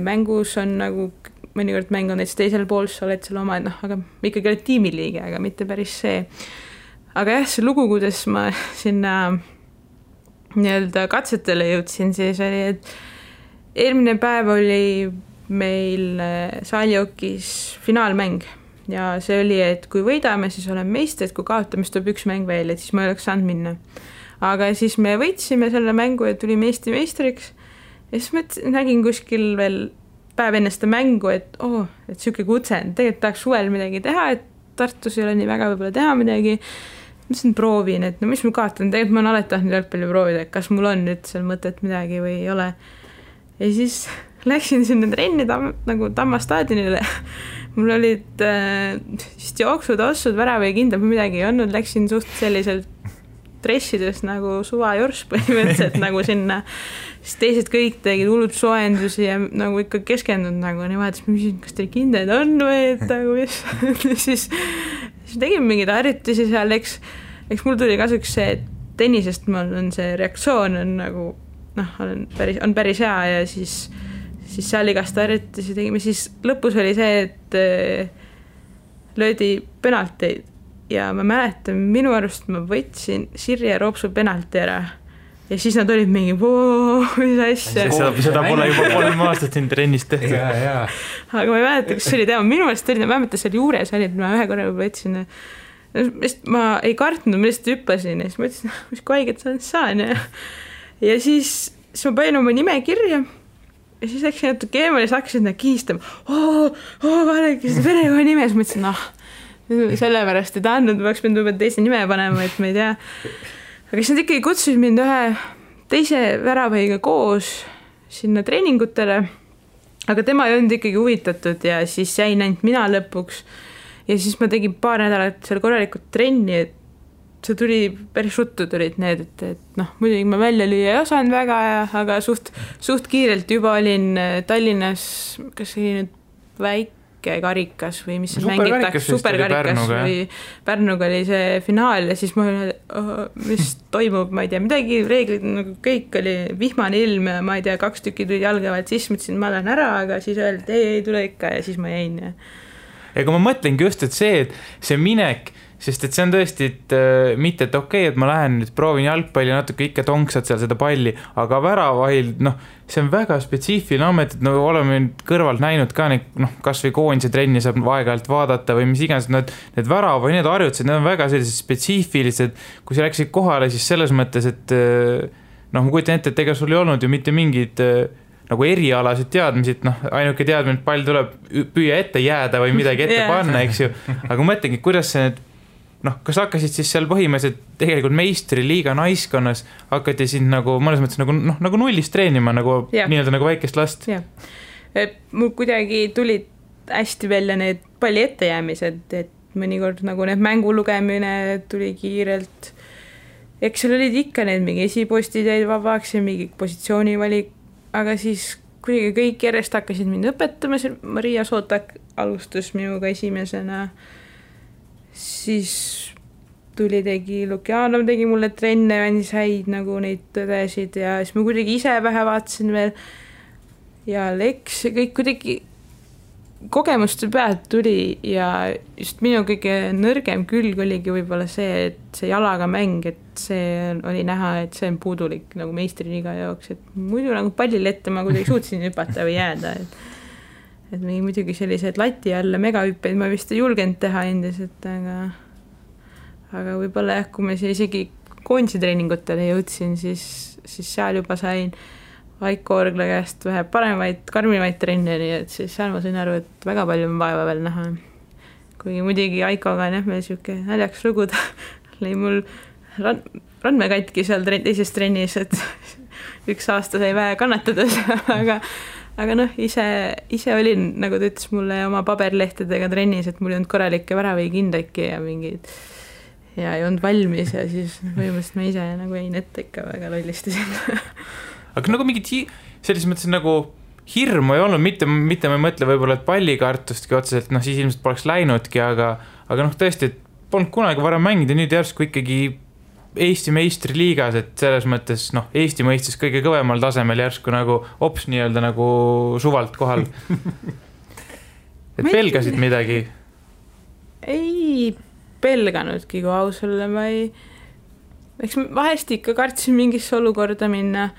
mängus on nagu mõnikord mäng on näiteks teisel pool, sa oled seal oma, aga ikkagi oled tiimiliige, aga mitte päris see. Aga jah, see lugu, kuidas ma sinna nii-öelda katsetele jõudsin, siis oli, et eelmine päev oli meil Saaljokis finaalmäng ja see oli, et kui võidame, siis oleme meistrid, kui kaotame, siis tuleb üks mäng veel, et siis ma ei oleks saanud minna. Aga siis me võitsime selle mängu ja tulime Eesti meistriks ja siis ma nägin kuskil veel päev enne seda mängu, et et siuke kutse, tegelikult tahaks suvel midagi teha, et Tartus ei ole nii väga võib-olla teha midagi. Ma siin proovin, et mis ma kaotan, tegelikult ma olen alati tahtnud jalgpalli proovida, et kas mul on nüüd seal mõtet midagi või ei ole. Ja siis läksin sinna trenni nagu Tamma staadionile. Mul olid vist jooksud, ossud, värava ja kindlad, midagi ei olnud, läksin suht selliselt dressides nagu suvajors põhimõtteliselt nagu sinna. Siis teised kõik tegid hullud soendusi ja nagu ikka keskendunud nagu nii vahetas, ma küsin, kas teil kindlad on või et nagu mis. siis tegin mingid harjutusi seal, eks mul tuli kasuks see, et tennisest mul on see reaktsioon on nagu on päris hea ja siis seal igast harjutusi tegime, siis lõpus oli see, et löödi penalteid ja ma mäletan, minu arust ma võtsin Sirje Roopsu penalti ära ja siis nad olid mingi mis asja. Seda pole juba 3 aastat siin trennist tehtud. Aga ma ei mäleta, kas see oli tema, minu meelest oli, ma mäletan seal juures oli, et ma ühe korra võtsin, ma ei kartnud, ma lihtsalt hüppasin ja siis ma ütlesin, mis kui haiget saan ja siis ma panin oma nime kirja ja siis läksin natuke eemale ja siis hakkasin kiistama vaadake seda perekonna nime, siis ma ütlesin, sellepärast ei tahtnud, ma peaks pidanud teise nime panema, et ma ei tea. aga siis nad ikkagi kutsusid mind ühe teise väravõiga koos sinna treeningutele, aga tema ei olnud ikkagi huvitatud ja siis jäin ainult mina lõpuks ja siis ma tegin 2 nädalat seal korralikult trenni, et see tuli, päris ruttu tulid need, et noh, muidugi ma välja lüüa ei osanud väga, aga suht kiirelt juba olin Tallinnas, kas see nüüd väike karikas või mis see mängitakse, superkarikas või Pärnuga oli see finaal ja siis ma mis toimub, ma ei tea, midagi reeglid, nagu kõik oli vihmane ilm ja ma ei tea, 2 tükki tulid jalgavalt, siis mõtlesin, ma lähen ära, aga siis öeldi, ei tule ikka ja siis ma jäin. Ega ma mõtlengi just, et see minek, sest et see on tõesti, et mitte, et okei, et ma lähen nüüd proovin jalgpalli natuke ikka tonksad seal seda palli, aga väravahil, noh, see on väga spetsiifiline amet, et no oleme kõrvalt näinud ka neid, noh, kas või koondise trenni saab aeg-ajalt vaadata või mis iganes, need värava või need harjutused, need on väga sellised spetsiifilised, kui sa läksid kohale, siis selles mõttes, et noh, ma kujutan ette, et ega sul ei olnud ju mitte mingid nagu erialasid teadmised, noh, ainuke teadmine, et pall tuleb püüa ette jääda või midagi ette panna, eks ju, aga mõtlengi, kuidas see need noh, kas hakkasid siis seal põhimõtteliselt tegelikult meistriliiga naiskonnas, hakati sind nagu mõnes mõttes nagu nullist treenima, nagu nii-öelda nagu väikest last? Jah, mul kuidagi tulid hästi välja need palli ettejäämised, et mõnikord nagu need mängu lugemine tuli kiirelt. Eks seal olid ikka need mingi esipostid jäid vabaks ja mingi positsioonivalik, aga siis kuidagi kõik järjest hakkasid mind õpetama, Maria Sootak alustas minuga esimesena, siis tegi Lukjanov tegi mulle trenne ja andis häid nagu neid tõdesid ja siis ma kuidagi ise vähe vaatasin veel ja Leks ja kõik kuidagi kogemuste pealt tuli ja just minu kõige nõrgem külg oligi võib-olla see, et see jalaga mäng, et see oli näha, et see on puudulik nagu meistriliiga jaoks, et muidu nagu pallile ette ma kuidagi suutsin hüpata või jääda, et muidugi sellised lati alla megahüppeid ma vist ei julgenud teha endiselt, aga võib-olla jah, kui ma isegi koondise treeningutele jõudsin, siis seal juba sain Vaiko Orgla käest vähe paremaid, karmimaid trenne, nii et siis seal ma sain aru, et väga palju on vaeva veel näha. Kuigi muidugi Aikoga on jah, meil selline näljaks luguda, lõi mul randme katki seal teises trennis, et 1 aasta sai vähe kannatades, aga noh, ise olin, nagu ta ütles mulle oma paberlehtedega trennis, et mul ei olnud korralikke väravi kindlaki ja mingid ja ei olnud valmis ja siis põhimõtteliselt ma ise nagu jäin ette ikka väga lollistasin. Aga nagu mingid selles mõttes nagu hirmu ei olnud, mitte ma ei mõtle võib-olla, et pallikartustki otseselt, noh siis ilmselt poleks läinudki, aga noh tõesti, et polnud kunagi varem mängida, nüüd järsku ikkagi Eesti meistriliigas, et selles mõttes, noh, Eesti mõistes kõige kõvemal tasemel järsku nagu ops nii-öelda nagu suvalt kohal. Et pelgasid midagi? Ei pelganudki, kui aus olla, eks vahest ikka kartsin mingisse olukorda minna,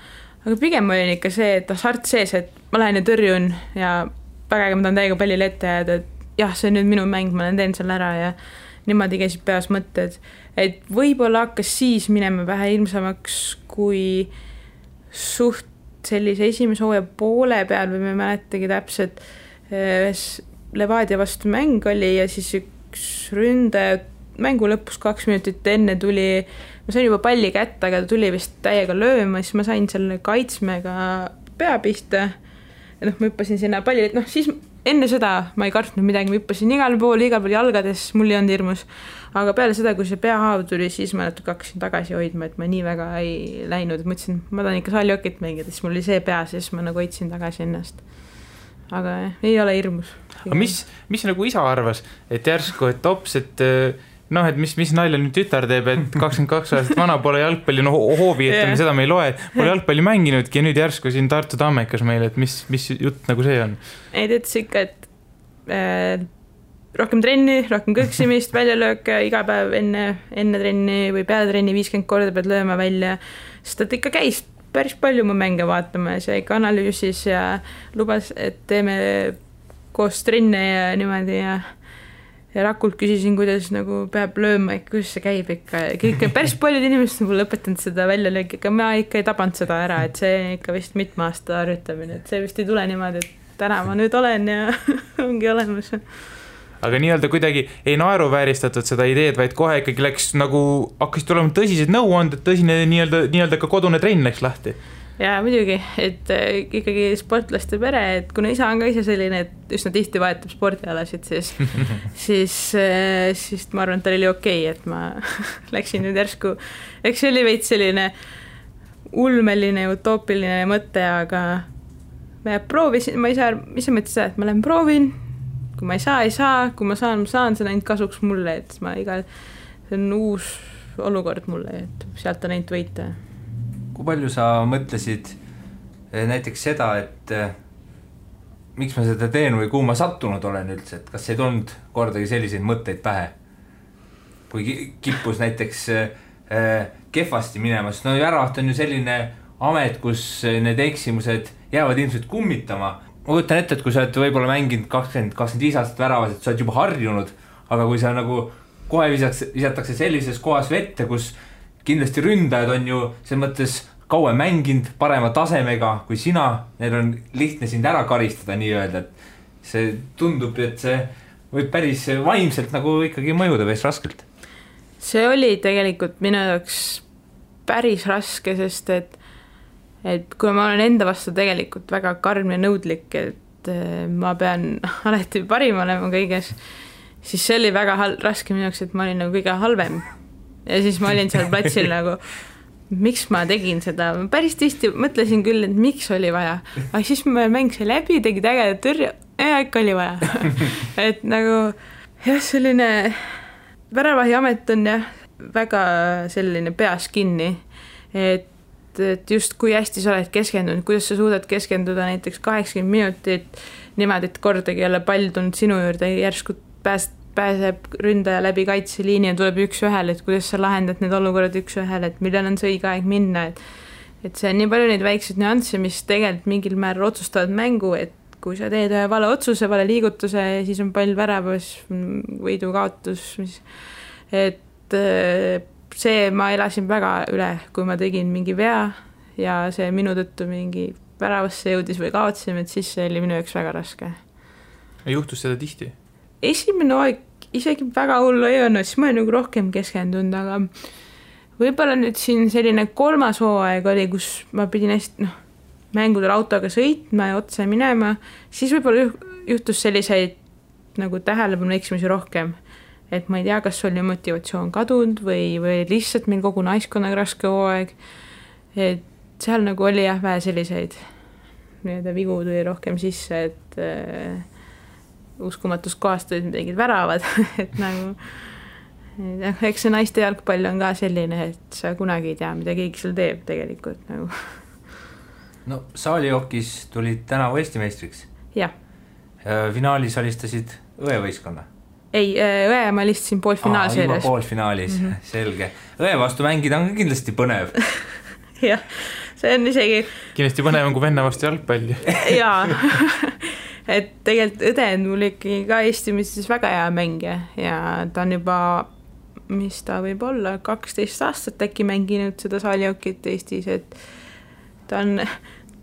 aga pigem olin ikka see, et hasart sees, et ma lähen ja tõrjun ja pägega ma tahan täiega pallile ette jääda, et jah, see on nüüd minu mäng, ma teen seal ära ja niimoodi käisid peas mõtted, et võib-olla hakkas siis minema vähe ilmsamaks, kui suht sellise esimese hooaja poole peal või me mäletagi täpselt Levadia vastu mäng oli ja siis üks ründaja mängu lõpus 2 minutit enne tuli, ma sain juba palli kätte, aga ta tuli vist täiega lööma, siis ma sain selle kaitsmega pea pista ja noh, ma hüppasin sinna palli, et noh, siis enne seda ma ei kartnud midagi, ma hüppasin igal pool jalgades, mul ei olnud hirmus, aga peale seda, kui see peahaav tuli, siis ma natuke hakkasin tagasi hoidma, et ma nii väga ei läinud, et mõtlesin, ma tahan ikka saaljokit mängida, siis mul oli see peas ja siis ma nagu hoidsin tagasi ennast. Aga ei ole hirmus. Aga mis nagu isa arvas, et järsku, et ops, et noh, et mis nalja nüüd tütar teeb, et 22 aastat vana pole jalgpalli, no hoovi, et seda me ei loe, pole jalgpalli mänginudki ja nüüd järsku siin Tartu Tammekas meile, et mis jutt nagu see on? Ei, ta ütles ikka, et rohkem trenni, rohkem kõksimist, väljalööke iga päev enne trenni või peale trenni 50 korda pead lööma välja, sest ta ikka käis päris palju mu mänge vaatama ja see ikka analüüsis ja lubas, et teeme koos trenne ja niimoodi ja Rakult küsisin, kuidas nagu peab lööma, kuidas see käib ikka. Kõik, päris paljud inimesed on mulle õpetanud seda väljalööki, aga ma ikka ei tabanud seda ära, et see ikka vist mitme aasta harjutamine, et see vist ei tule niimoodi, et täna ma nüüd olen ja ongi olemas. aga nii-öelda kuidagi ei naeruvääristatud seda ideed, vaid kohe ikkagi läks nagu, hakkasid tulema tõsised nõuanded, tõsine nii-öelda ka kodune trenn läks lahti. Ja muidugi, et ikkagi sportlaste pere, et kuna isa on ka ise selline, et üsna tihti vahetab spordialasid, siis ma arvan, et tal oli okei, et ma läksin nüüd järsku, eks see oli veits selline ulmeline, utoopiline mõte, aga ma proovisin, ma ise mõtlesin seda, et ma lähen proovin, kui ma ei saa, kui ma saan, see on ainult kasuks mulle, et see on uus olukord mulle, et sealt on ainult võita. Kui palju sa mõtlesid näiteks seda, et miks ma seda teen või kuhu ma sattunud olen üldse, et kas ei tulnud kordagi selliseid mõtteid pähe? Kui kippus näiteks kehvasti minemas, no Väravaht on ju selline amet, kus need eksimused jäävad ilmselt kummitama. Ma kujutan ette, et kui sa oled võib-olla mänginud 20-25 aastat Väravas, et sa oled juba harjunud, aga kui sa nagu kohe visatakse sellises kohas vette, kus kindlasti ründajad on ju selles mõttes kauem mänginud parema tasemega kui sina, neil on lihtne sind ära karistada nii-öelda, et see tundub, et see võib päris vaimselt nagu ikkagi mõjuda päris raskelt. See oli tegelikult minu jaoks päris raske, sest et kui ma olen enda vastu tegelikult väga karm ja nõudlik, et ma pean alati parim olema kõiges, siis see oli väga raske minu jaoks, et ma olin nagu kõige halvem. Ja siis ma olin seal platsil nagu, miks ma tegin seda, ma päris tihti mõtlesin küll, et miks oli vaja, aga siis ma mängisin läbi, tegid ägeda tõrje ja ikka oli vaja. Et nagu jah, selline Väravahi amet on jah, väga selline peas kinni, et just kui hästi sa oled keskendunud, kuidas sa suudad keskenduda näiteks 80 minutit niimoodi, et kordagi ei ole pall tulnud sinu juurde, järsku pääseb ründaja läbi kaitseliini ja tuleb üks-ühele, et kuidas sa lahendad need olukorrad üks-ühele, et millal on see õige aeg minna, et see on nii palju neid väikseid nüansse, mis tegelikult mingil määral otsustavad mängu, et kui sa teed vale otsuse, vale liigutuse, siis on pall väravas, võidu kaotus, et see ma elasin väga üle, kui ma tegin mingi vea ja see minu tõttu mingi väravasse jõudis või kaotsime, et siis see oli minu jaoks väga raske. Juhtus seda tihti? Esimene aeg isegi väga hullu ei olnud, siis ma olen nagu rohkem keskendunud, aga võib-olla nüüd siin selline 3. hooaeg oli, kus ma pidin hästi mängudel autoga sõitma ja otse minema, siis võib-olla juhtus selliseid nagu tähelepanu eksimisi rohkem, et ma ei tea, kas oli motivatsioon kadunud või lihtsalt meil kogu naiskonnaga raske hooaeg, et seal nagu oli jah vähe selliseid vigu tuli rohkem sisse, et uskumatus kohast olid midagi väravad, et nagu eks see naiste jalgpall on ka selline, et sa kunagi ei tea, mida keegi seal teeb tegelikult nagu. No saalijookis tulid tänavu Eesti meistriks. Jah. Finaalis alistasid õevõiskonna. Ei, õe ma alistasin poolfinaalseerias. Juba poolfinaalis, selge. Õe vastu mängida on kindlasti põnev. Jah, see on isegi kindlasti põnev on kui venna vastu jalgpalli. Jaa, et tegelikult õde on mul ikkagi ka Eesti mõistes väga hea mängija ja ta on juba, mis ta võib olla, 12 aastat äkki mänginud seda saalijookit Eestis, et ta on,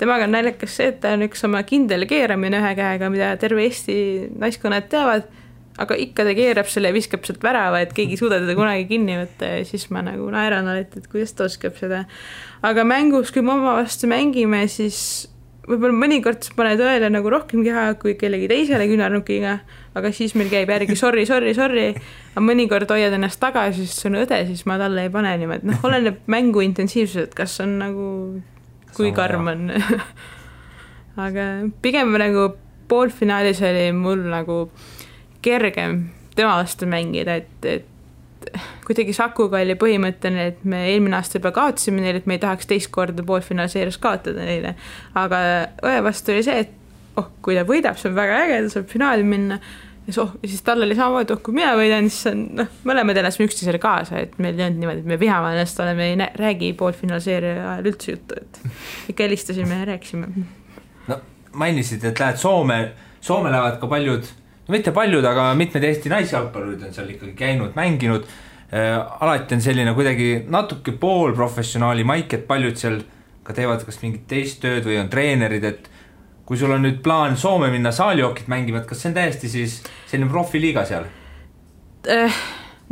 temaga on naljakas see, et ta on üks oma kindel keeramine ühe käega, mida terve Eesti naiskonnad teavad, aga ikka ta keerab selle ja viskab sealt värava, et keegi ei suuda teda kunagi kinni võtta ja siis ma nagu naeran alati, et kuidas ta oskab seda. Aga mängus, kui me oma vastu mängime, siis võib-olla mõnikord sa paned õele nagu rohkem keha kui kellegi teisele küünarnukiga, aga siis meil käib järgi sorry, aga mõnikord hoiad ennast tagasi, sest see on õde, siis ma talle ei pane niimoodi, oleneb mängu intensiivsused, kas on nagu, kui karm on. Aga pigem nagu poolfinaalis oli mul nagu kergem tema vastu mängida, et kuidagi Sakuga oli põhimõttene, et me eelmine aasta juba kaotasime neile, et me ei tahaks teist korda poolfinaalseerias kaotada neile. Aga õe vastu oli see, et kui ta võidab, see on väga äge, ta saab finaali minna. Ja siis tal oli samamoodi, kui mina võidan, siis on, mõlemad elasime üksteisele kaasa, et meil ei olnud niimoodi, et me vihame ennast oleme, ei räägi poolfinaalseeria ajal üldse juttu, et ikka helistasime ja rääkisime. No mainisid, et lähed Soome lähevad ka paljud, no mitte paljud, aga mitmed Eesti naisjalgpallurid on seal ikkagi käinud, mänginud. Alati on selline kuidagi natuke poolprofessionaali maik, et paljud seal ka teevad kas mingit teist tööd või on treenerid, et kui sul on nüüd plaan Soome minna saalihookit mängima, et kas see on täiesti siis selline profiliiga seal?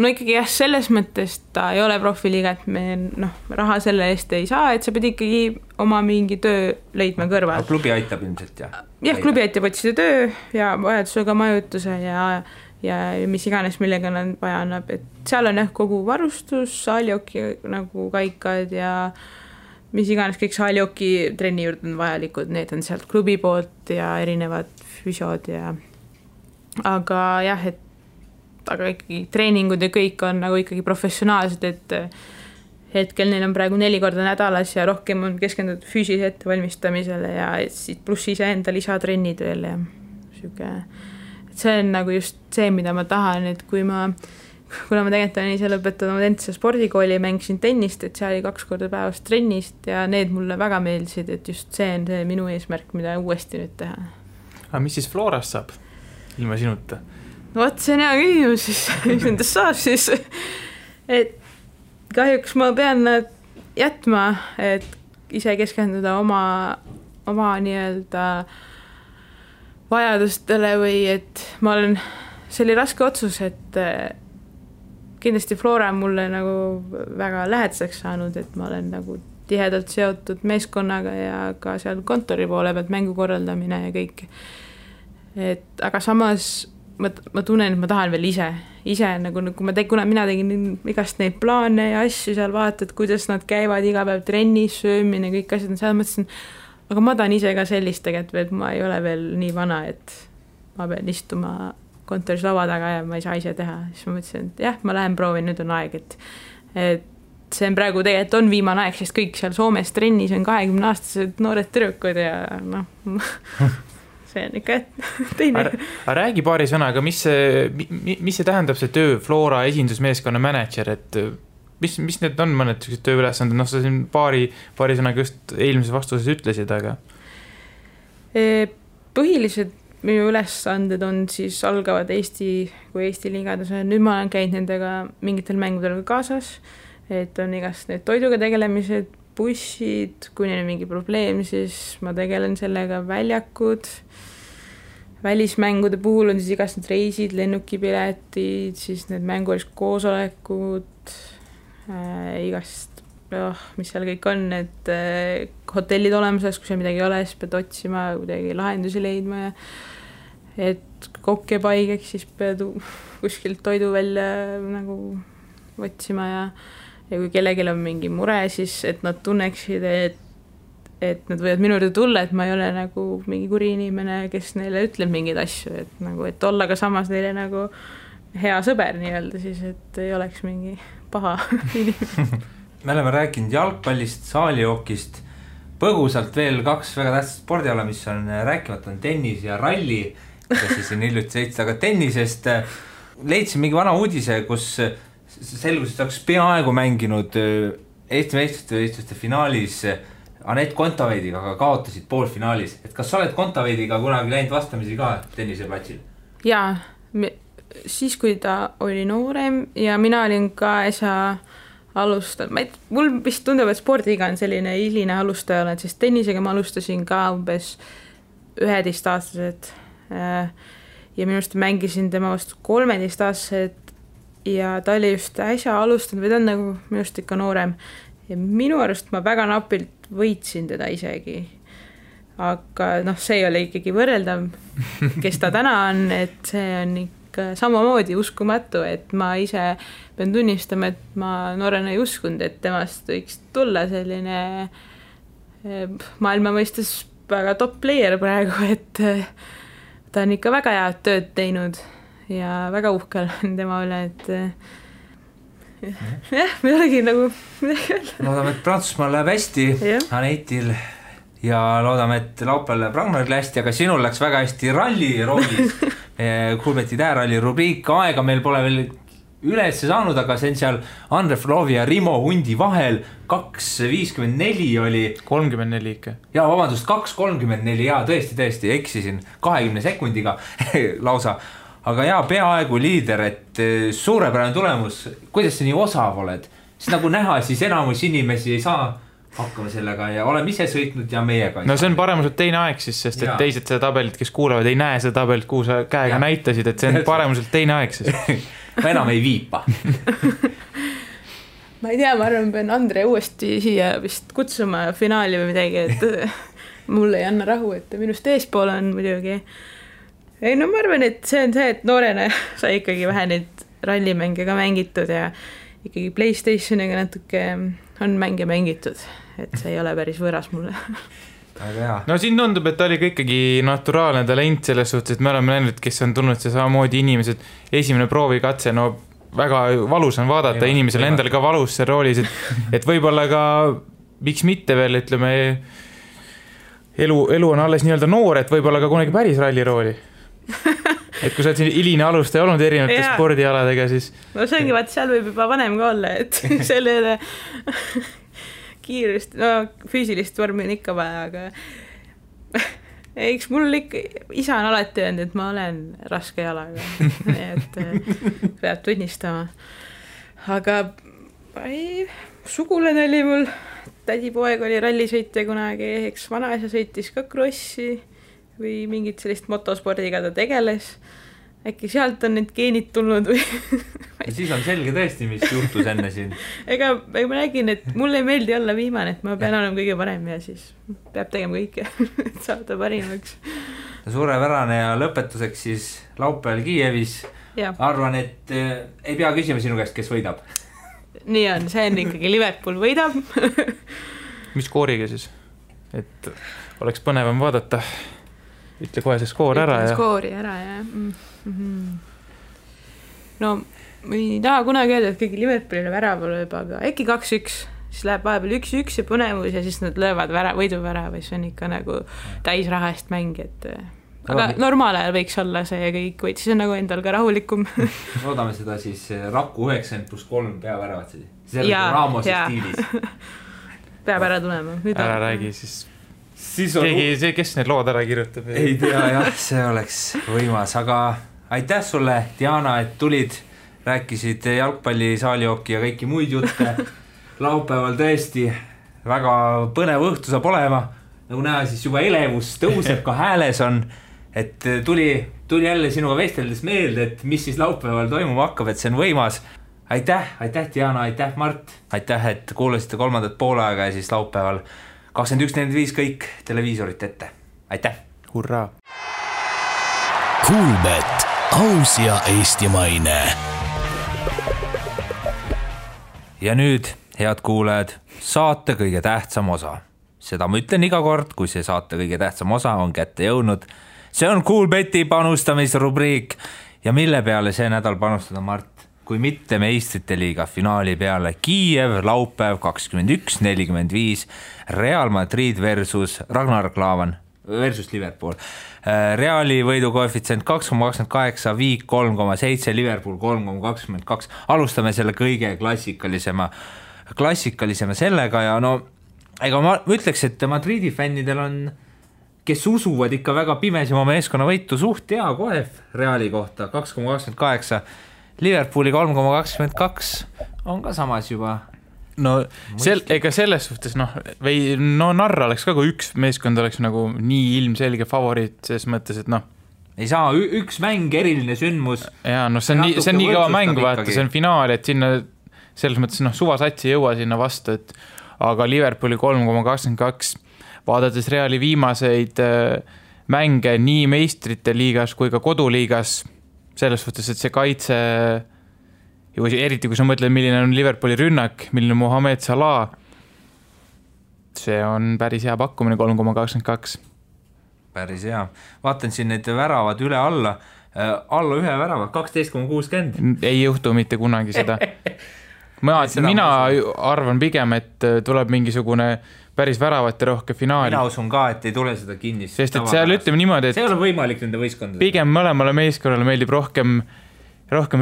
No ikkagi jah, selles mõttes ta ei ole profiliiga, et me raha selle eest ei saa, et sa pead ikkagi oma mingi töö leidma kõrval. Klubi aitab ilmselt, jah? Jah, klubi aitab otsida töö ja vajadusega majutuse ja mis iganes, millega nad vaja annab, et seal on jah kogu varustus, saalihooki nagu kaikad ja mis iganes kõik saalihooki trenni juurde on vajalikud, need on sealt klubi poolt ja erinevad füsiod ja aga jah, aga ikkagi treeningud ja kõik on nagu ikkagi professionaalsed, et hetkel neil on praegu 4 korda nädalas ja rohkem on keskendunud füüsilise ettevalmistamisele ja siit pluss iseenda lisatrennid veel ja siuke, et see on nagu just see, mida ma tahan, et kuna ma tegelikult olen ise lõpetanud endise spordikooli ja mängisin tennist, et see oli 2 korda päevas trennist ja need mulle väga meeldisid, et just see on see minu eesmärk, mida uuesti nüüd teha. Aga mis siis Florast saab ilma sinuta? No vot, see on hea küsimus siis, mis nendest saab siis, et kahjuks ma pean nad jätma, et ise keskenduda oma nii-öelda vajadustele või et ma olen, see oli raske otsus, et kindlasti Flora on mulle nagu väga lähedaseks saanud, et ma olen nagu tihedalt seotud meeskonnaga ja ka seal kontori poole pealt mängu korraldamine ja kõik. Et aga samas ma tunnen, et ma tahan veel ise nagu kuna mina tegin igast neid plaane ja asju seal vaatad, kuidas nad käivad iga päev trennis, söömine, kõik asjad, seal mõtlesin, aga ma tahan ise ka sellist tegelikult, et ma ei ole veel nii vana, et ma pean istuma kontoris laua taga ja ma ei saa ise teha. Siis ma mõtlesin, et jah, ma lähen proovin, nüüd on aeg, et see on praegu tegelikult on viimane aeg, sest kõik seal Soomes trennis on 20-aastased noored tüdrukud ja see on ikka teine. Aga räägi paari sõnaga, mis see tähendab see töö Flora esindusmeeskonna manager, et mis need on mõned tööülesanded, sa siin paari sõnaga just eelmises vastuses ütlesid, aga põhilised minu ülesanded on siis algavad Eesti liigades, nüüd ma olen käinud nendega mingitel mängudel kaasas, et on igast need toiduga tegelemised, bussid, kui neil on mingi probleem, siis ma tegelen sellega, väljakud, välismängude puhul on siis igast need reisid, lennukipiletid, siis need mängulised koosolekud, igast, mis seal kõik on, et hotellid olemas, kui seal midagi ei ole, siis pead otsima, kuidagi lahendusi leidma ja et kokk jääb haigeks, siis pead kuskilt toidu välja nagu otsima ja kui kellelgi on mingi mure, siis et nad tunneksid, et nad võivad minu juurde tulla, et ma ei ole nagu mingi kuri inimene, kes neile ütleb mingeid asju, et olla ka samas neile nagu hea sõber nii-öelda siis, et ei oleks mingi paha inimene. Me oleme rääkinud jalgpallist, saalihookist, põgusalt veel 2 väga tähtsat spordiala, mis on rääkimata, on tennis ja ralli, kes siis on hiljuti sõitsa, aga tennisest leidsin mingi vana uudise, kus selgus, et oleks peaaegu mänginud Eesti meistrite finaalis Anett Kontaveidiga, aga kaotasid poolfinaalis. Et kas sa oled Kontaveidiga kunagi läinud vastamisi ka tenniseplatsil? Jaa, siis kui ta oli noorem ja mina olin ka äsja alustanud. Mul vist tundub, et spordiga on selline hiline alustaja olen, sest tennisega ma alustasin ka umbes 11-aastased ja minu arust mängisin tema vastu 13-aastased ja ta oli just äsja alustanud või ta on nagu minu arust ikka noorem ja minu arust ma väga napilt võitsin teda isegi, aga see ei ole ikkagi võrreldav, kes ta täna on, et see on ikka samamoodi uskumatu, et ma ise pean tunnistama, et ma noorena ei uskunud, et temast võiks tulla selline maailma mõistes väga top player praegu, et ta on ikka väga head tööd teinud ja väga uhkel tema üle, et jah, me olegi nagu loodame, et Prantsusmaal läheb hästi Anetil ja loodame, et laupäeval läheb Ragnaril hästi, aga sinul läks väga hästi ralli roolis Kuulbeti tääralli rubriik, aega meil pole veel üles saanud, aga see on seal Andre Flovi ja Rimo Hundi vahel 2.54 oli 34 ikka. Ja vabandust, 2.34 ja tõesti eksisin 20 sekundiga lausa. Aga peaaegu liider, et suurepärane tulemus. Kuidas sa nii osav oled? Siis nagu näha, siis enamus inimesi ei saa hakkame sellega ja oleme ise sõitnud ja meiega. No see on paremuselt teine aeg siis, sest et teised seda tabelit, kes kuulavad, ei näe seda tabelit, kuhu sa käega näitasid, et see on paremuselt teine aeg siis. Ma enam ei viipa. Ma ei tea, ma arvan, pean Andre uuesti siia vist kutsuma finaali või midagi, et mulle ei anna rahu, et minust eespool on muidugi. Ei, no ma arvan, et see on see, et noorena sai ikkagi vähe neid rallimänge ka mängitud ja ikkagi PlayStationiga natuke on mänge mängitud, et see ei ole päris võõras mulle. No siin tundub, et ta oli ka ikkagi naturaalne talent selles suhtes, et me oleme näinud, kes on tulnud see samamoodi inimesed, esimene proovikatse, no väga valus on vaadata, inimesel endal ka valus see roolis, et võib-olla ka miks mitte veel, ütleme, elu on alles nii-öelda noor, et võib-olla ka kunagi päris ralli rooli. Et kui sa oled siin hiline alustaja olnud erinevate spordialadega, siis... No see ongi, vaat seal võib juba vanem ka olla, et sellele kiirust, no füüsilist vormi on ikka vaja, aga eks mul ikka, isa on alati öelnud, et ma olen raske jalaga, et peab tunnistama. Aga sugulane oli mul, tädipoeg oli rallisõitja kunagi, eks vanaisa sõitis ka krossi või mingit sellist motospordiga ta tegeles. Äkki sealt on need geenid tulnud või... Ja siis on selge tõesti, mis juhtus enne siin. Ega ma nägin, et mulle ei meeldi olla viimane, et ma pean olema kõige parem ja siis peab tegema kõike, et saada parimaks. Suurepärane ja lõpetuseks siis laupäeval Kiievis. Arvan, et ei pea küsima sinu käest, kes võidab. Nii on, see on ikkagi Liverpool võidab. Mis skooriga siis? Et oleks põnevam vaadata. Ütle kohe see skoor ära. Skoori ära, jah. No, ma ei taha kunagi öelda, et kõigi Liverpoolile väraval lööb, aga äkki 2-1, siis läheb vahepeal 1-1 ja põnevus ja siis nad löövad võiduvärava, see on ikka nagu täisraha eest mäng, et... Aga normaal ajal võiks olla see ja kõik, vaid siis on nagu endal ka rahulikum. Loodame seda siis Raku 90+3 peaväravat. See on Ramose stiilis. Peab ära tulema. Ära räägi siis... Keegi, kes need lood ära kirjutab? Ei tea, jah, see oleks võimas, aga aitäh sulle, Diana, et tulid, rääkisid jalgpalli, saalioki ja kõiki muid jutte. Laupäeval tõesti väga põnev õhtu saab olema, nagu näha, siis juba elevus tõuseb, ka hääles on, et tuli jälle sinuga vesteldes meelde, et mis siis laupäeval toimuma hakkab, et see on võimas. Aitäh, Diana, aitäh, Mart, aitäh, et kuulasite kolmandat poolaega ja siis laupäeval 21.45 kõik televiisorit ette. Aitäh! Hurraa! Kuulbet, aus ja eestimaine. Ja nüüd, head kuulajad, saate kõige tähtsam osa. Seda ma ütlen iga kord, kui see saate kõige tähtsam osa on kätte jõudnud. See on Kuulbeti panustamisrubriik ja mille peale see nädal panustada, Mart? Kui mitte meistrite liiga finaali peale Kiiev, laupäev 21.45, Real Madrid versus Ragnar Klavan versus Liverpool. Reali võidukoefitsient 2,28, Viik 3,7, Liverpool 3,22. Alustame selle kõige klassikalisema sellega ja no, ega ma ütleks, et Madridi fännidel on, kes usuvad ikka väga pimesi oma meeskonna võitu, suht hea koef Reali kohta 2,28. Liverpooli 3,22 on ka samas juba. No ega selles suhtes, narra oleks ka, kui üks meeskond oleks nagu nii ilmselge favoriit, selles mõttes, et ei saa üks mäng, eriline sündmus. Ja see on nii kõva mäng, vaata, see on finaal, et sinna selles mõttes suvasats ei jõua sinna vastu, et aga Liverpooli 3,22 vaadates Reali viimaseid mänge nii meistrite liigas kui ka koduliigas, selles suhtes, et see kaitse, eriti kui sa mõtled, milline on Liverpooli rünnak, milline Mohamed Salah, see on päris hea pakkumine 3,22. Päris hea. Vaatan siin need väravad üle alla ühe värava, 12,60. Ei juhtu mitte kunagi seda. Mina arvan pigem, et tuleb mingisugune päris väravate rohke finaali. Mina usun ka, et ei tule seda kinnist. Sest et seal ütleme niimoodi, et see ei ole võimalik nende võistkondade. Pigem mõlemale meeskonnale meeldib rohkem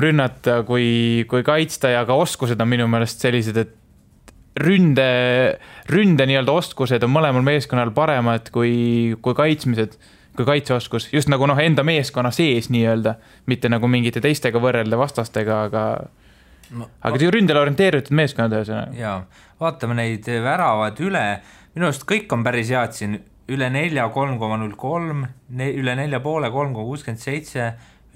rünnata kui kaitsta ja ka oskused on minu meelest sellised, et ründe nii-öelda oskused on mõlemal meeskonnal paremad kui kaitsmised, kui kaitseoskus. Just nagu enda meeskonna sees nii-öelda, mitte nagu mingite teistega võrrelda vastastega, aga aga ründele orienteeritud meeskonnad ühesõnaga. Jaa, vaatame neid väravad üle, minu arust kõik on päris head siin, üle 4, 3,03, üle 4,5, 3,67,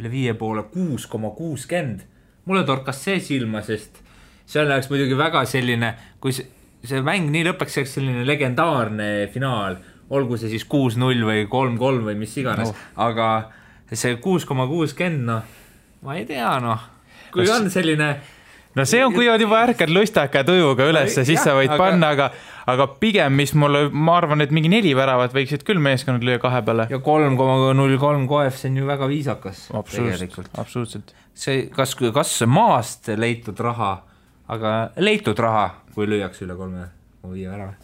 üle 5,5, 6,60. Mulle torkas see silma, sest seal läheks muidugi väga selline, kui see mäng nii lõpeks selline legendaarne finaal, olgu see siis 6-0 või 3-3 või mis iganes, aga see 6,60, noh, ma ei tea, noh, kui on selline... No see on, kui on juba ärkad lustaka tujuga üles, siis sa võid panna, aga pigem, mis mulle, ma arvan, et mingi 4 väravat võiksid küll meeskonnad lüüa 2 peale. Ja 3,03 koef, see on ju väga viisakas. Absoluutselt. See, kas maast leitud raha, aga leitud raha, kui lüüakse üle 3,5 värava.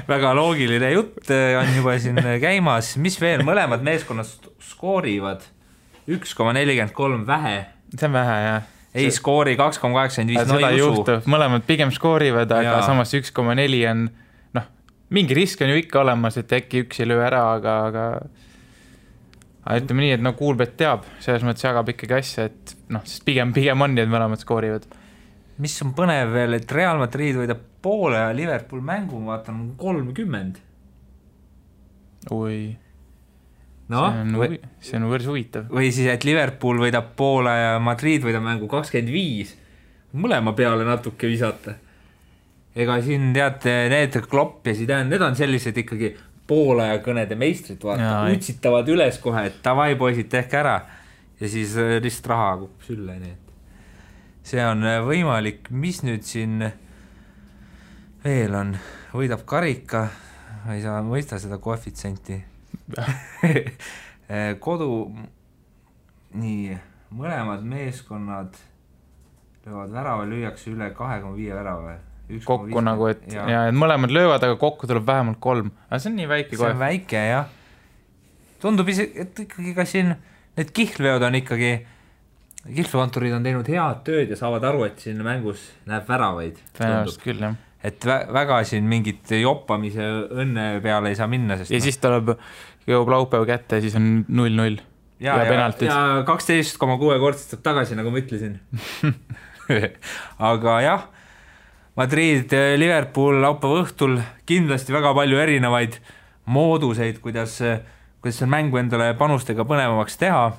Väga loogiline jutt on juba siin käimas. Mis veel? Mõlemad meeskonnad skoorivad 1,43 vähe. See on vähe, jah. Ei skoori 2,85, no ei usu. Mõlemad pigem skoorivad, aga samas 1,4 on, noh, mingi risk on ju ikka olemas, et äkki üks ei löö ära, aga ütleme nii, et no Kuulbet teab, selles mõttes jagab ikkagi asja, et noh, sest pigem on nii, et mõlemad skoorivad. Mis on põnev veel, et Real Madrid võidab poole ja Liverpool mängu, ma vaatan, 30. Oi... No, see on võrs huvitav. Või siis, et Liverpool võidab poole ja Madrid võidab mängu 25. Mõlema peale natuke visata. Ega siin teate, need Klopp ja Zidane, need on sellised ikkagi poole ja kõnede meistrid, vaata, utsitavad üles kohe, et tavai poisid, tehke ära. Ja siis lihtsalt raha kukub sülle. Nii. See on võimalik. Mis nüüd siin veel on? Võidab karika, ei saa mõista seda koefitsenti. Kodu nii, mõlemad meeskonnad löövad värava, lüüakse üle 2,5 värava kokku nagu, et mõlemad löövad, aga kokku tuleb vähemalt 3, aga see on nii väike see on väike, jah, tundub isegi, et ikkagi ka siin need kihlveod on ikkagi kihlvekontorid on teinud head tööd ja saavad aru, et siin mängus näeb väravaid tõenäoliselt küll, jah. Et väga siin mingit joppamise õnne peale ei saa minna, sest ja siis jõuab laupäev kätte ja siis on 0-0 ja penaltid. Ja 12,6 kordstab tagasi, nagu ma ütlesin. Aga jah, Madrid, Liverpool laupäeva õhtul kindlasti väga palju erinevaid mooduseid, kuidas see mängu endale panustega põnevamaks teha.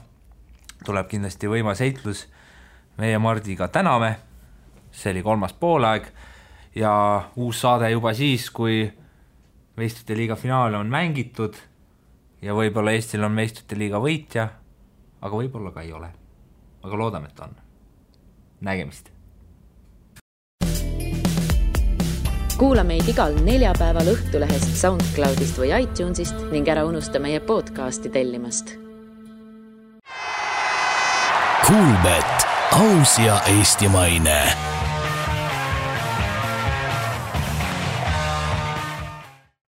Tuleb kindlasti võimas heitlus. Meie Mardiga täname. See oli 3. poolaeg ja uus saade juba siis, kui meistrite liiga finaale on mängitud ja võib-olla Eestil on meistrite liiga võitja, aga võib-olla ka ei ole. Aga loodame, et on. Nägemist! Kuula meid igal neljapäeval Õhtulehest, SoundCloudist või iTunesist ning ära unusta meie podcasti tellimast. Kuulbet, aus ja eestimaine.